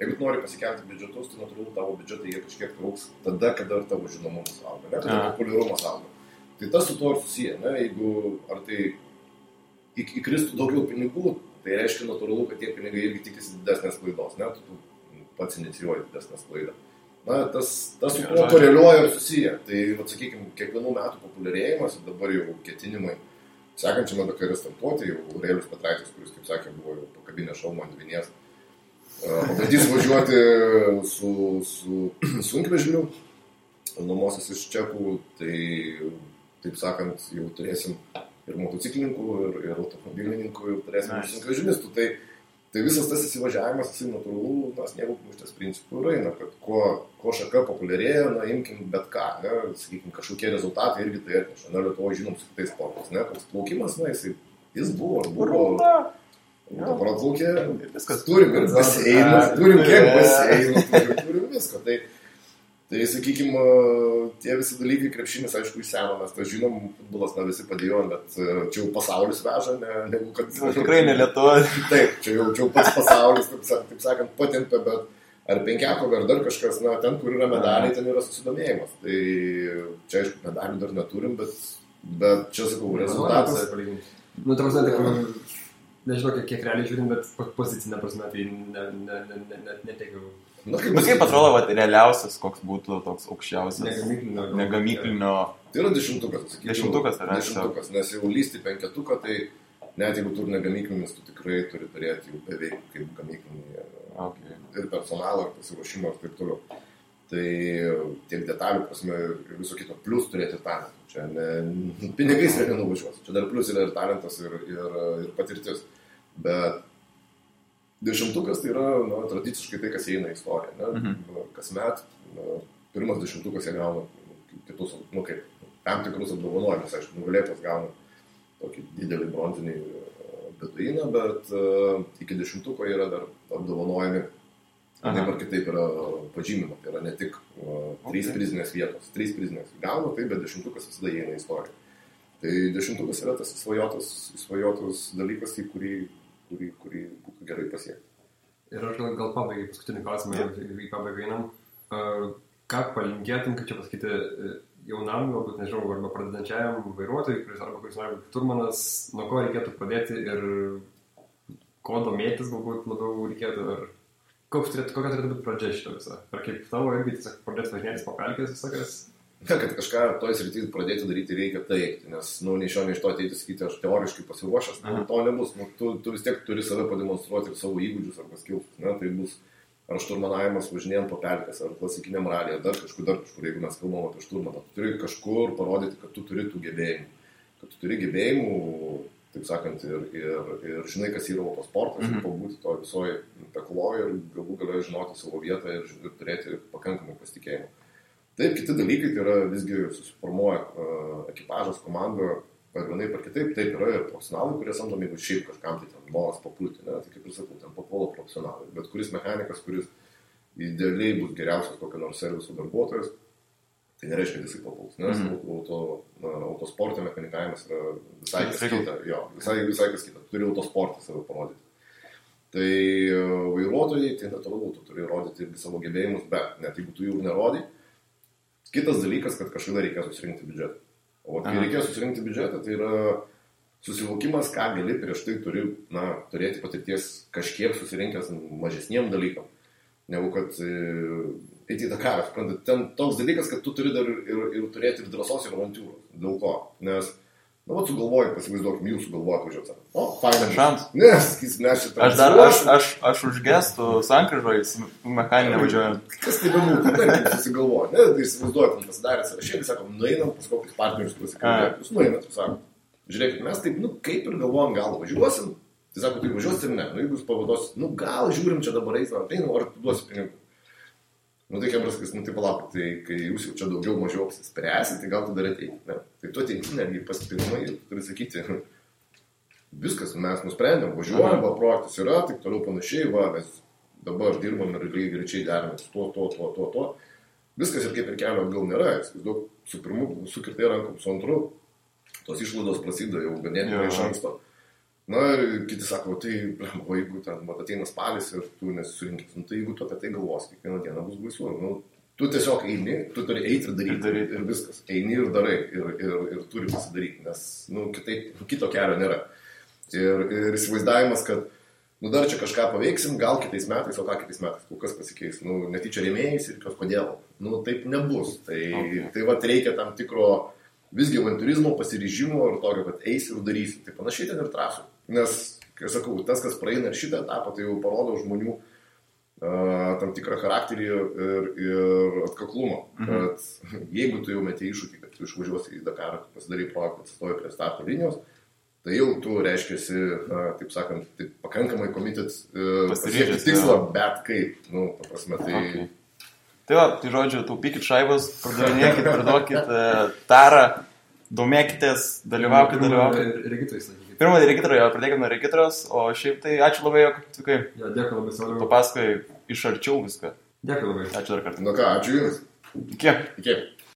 Jeigu tu nori pasikelti biudžetus, tai natūralu tavo biudžetai jie kažkiek trauks tada, kada ir tavo žinomumas auga, ne? Kada populiarumas auga. Tai tas su to ir susiję, ne? Jeigu ar tai įkristų daugiau pinigų, tai reiškia natūralu, kad tie pinigai irgi tikisi didesnės klaidos, ne? Tu pats inicijuoji didesnės klaidą. Tas su to koreliuoja ir susiję. Tai, sakykime, kiekvienų metų populiarėjimas ir dabar jau ketinimai sekančiame Dakare startuoti, jau Aurelijus Petraitis, kuris, kaip sakė, buvo jau pakabinę šalmą ant vinies, pabandys važiuoti su sunkvežimiu, nuomosis iš čekų, tai, taip sakant, jau turėsim ir motociklininkų, ir automobilininkų, ir turėsim sunkvežimistų. Tai visas tas įsivažiavimas, jisai natūralu, sniego gniūžtės principų eina, kad kuo šaka populiarėja, imkim bet ką, ne, sakykim, kažkokie rezultatai irgi tai atneša. Lietuvoje žinom su kitais sportais, ne, koks plaukimas, jis buvo. Dabar atplaukė, turim ir baseinus, turim kiek baseinų, turim visko. Tai sakykime, tie visi dalykai krepšinis, aišku, iš seno, mes tą žinom, futbolas visi padėjom, bet čia jau pasaulis veža, negu kad... Tikrai ne Lietuva. Taip, čia jau pats pasaulis, taip sakant, patempė, bet ar penkiakovė, ar dar kažkas, ten, kur yra medaliai, ten yra susidomėjimas. Tai čia, aišku, medalių dar neturim, bet čia, sakau, rezultatas... Nežinau, kiek realiai žiūrim, bet pozicinė prasme, tai netekiau. Bet kaip atrodo, realiausias, koks būtų toks aukščiausias? Negamyklinio. Tai yra 10-tukas. 10-tukas, ar ne? 10-tukas, nes jau lysti 5-tuką, tai net jeigu tu ne gamyklinis, tu tikrai turi turėti jau beveik kaip gamyklinį ir personalą, ir pasiruošimą ir taip toliau. Tai tiek detalių prasme ir viso kito, plus turėti talentą. Čia pinigais nenuvažiuos. Čia dar plus yra ir talentas, ir patirtis. Bet 10-ukas tai yra tradiciškai tai, kas įeina į istoriją. Kasmet pirmas 10-ukas jie gauna kitus, kaip tam tikrus apdovanojimus. Aišku, nugalėtas gauna tokį didelį bronzinį beduiną, bet iki 10-uko yra dar apdovanojami. Taip ar kitaip yra pažymima, tai yra ne tik 3 prizinės vietos, 3 prizinės gauna, tai bet 10-ukas visada įeina į istoriją. Tai 10-ukas yra tas įsvajotas dalykas, į kurį būtų gerai pasiekti. Ir aš gal pabaigai paskutinį klausimą, į pabaigą einam. Ką palinkėtum, kaip čia pasakyti, jaunam, galbūt nežinau, arba pradedančiajam vairuotojui, kuris nori būti šturmanas, nuo ko reikėtų pradėti ir ko domėtis galbūt labiau reikėtų, ar kokia turėtų būti pradžia šito visą? Ar kaip tavo irgi tiesiog pradėti važinėtis po pelkės visokias? Ne, kad kažką toj srityje pradėti daryti reikia taip, nes nei iš to ateiti sakyti, aš teoriškai pasiruošęs, to nebus. Tu vis tiek turi save pademonstruoti ir savo įgūdžius arba skilsus. Tai bus ar šturmanavimas važinėjant po pelkės, ar klasikiniam ralį, ar dar kažkur, jeigu mes kalbam apie šturmaną. Tu turi kažkur parodyti, kad tu turi tų gebėjimų. Kad tu turi gebėjimų, taip sakant, ir žinai, kas yra autosportas, ir pabūti to visoje pekloje ir galų galę žinoti savo vietą ir turėti pakankamai pasitikėjimą. Taip, kiti dalykai, tai yra visgi susiformuoja ekipažas, komanda, ar vienai par kitaip, taip yra ir profesionalai, kurie samdomi, jeigu šiaip kažkam tai ten noras papulti, tai kaip ir sakau, ten papuola profesionalai, bet kuris mechanikas, kuris idealiai bus geriausias kokio nors serviso darbuotojas, tai nereiškia, kad jisai papuls, nes autosporto mechanikavimas yra visai kas kita. Jo, visai kas kita. Turi autosportą save parodyti. Tai vairuotojai, tai natūralu, tu turi rodyti irgi savo gebėjimus, bet net jeigu tu jų nerodai, kitas dalykas, kad kažkada reikės susirinkti biudžetą. O kai reikės susirinkti biudžetą, tai yra susivokimas, ką gali prieš tai turi turėti patirties kažkiek susirinkęs mažesniem dalykam, negu kad eiti į Dakarą. Ten toks dalykas, kad tu turi dar ir turėti ir drąsos ir avantūros. Dėl ko? Nes, sugalvoji, pasivaizduokim, jūs sugalvojate važiuoti. Faina šans. Nes šitą. Aš už gestų sankryžoje mechaninę važiuoju. Kas tai bebūtų, taip susigalvoja. Tai įsivaizduoju, kad pasidarė sąrašėlį, sakom, nueinam pas kokius partnerius pasikalbėti. Jūs nueinat, sakom, žiūrėkit, mes taip, kaip ir galvojam, gal važiuosim. Tai sako, tai važiuosi ir ne. Jeigu jūs pavaduosit, gal žiūrim čia dabar eisime, ar tu duosi pinigų. Tai Kebraskas, tai palauk, tai kai jūs jau čia daugiau mažiau apsispręsit, tai gal tu dar ateiti. Tai tu ateiti netgi pasipirmai ir turi sakyti, viskas, mes nusprendėm, važiuojam, projektas yra, taip toliau panašiai, mes dabar dirbam ir lygiai greičiai deramės to. Viskas ir kaip ir kelio atgal nėra, daug su pirmu sukirtai rankom, su antru, tos išlaidos prasideda jau ganėtinai iš anksto. Ir kiti sako, tai, jeigu ten ateina spalis ir tu nesusirinkit, tai jeigu tu apie tai galvos, kiekvieną dieną bus baisu. Tu tiesiog eini, tu turi eiti ir daryti ir viskas. Eini ir darai ir turi pasidaryti, nes kito kelio nėra. Ir įsivaizdavimas, kad dar čia kažką paveiksim, gal kitais metais, o ką kitais metais, kol kas pasikeis. Netyčia rėmėjais ir kodėl. Taip nebus. Tai reikia tam tikro visgi avanturizmo, pasiryžimo ir tokio, kad eisi ir darysi. Tai panašiai ten ir trasų. Nes, kai sakau, tas, kas praeina ir šitą etapą, tai jau parodo žmonių tam tikrą charakterį ir atkaklumą. Kad jeigu tu jau meti iššūkį, kad tu išvažiuosi į Dakarą, pasidarai projektą, atsistoji prie starto linijos, tai jau tu reiškiasi, taip sakant, pakankamai komitet pasiekti tikslą, bet kaip, paprasme, tai... Okay. Tai žodžiu, taupykit šaibas, pardavinėkit, priduokit tarą, domėkitės, dalyvaukit. Regitrais, sakykit. Pirmą regitrą, pradėkime nuo regitros, o šiaip tai ačiū labai, jog atvykai. Dėkui labai, Sauliau. Tu pasakai iš arčiau viską. Dėkui labai. Ačiū dar kartą. Ką, ačiū Jums. Iki.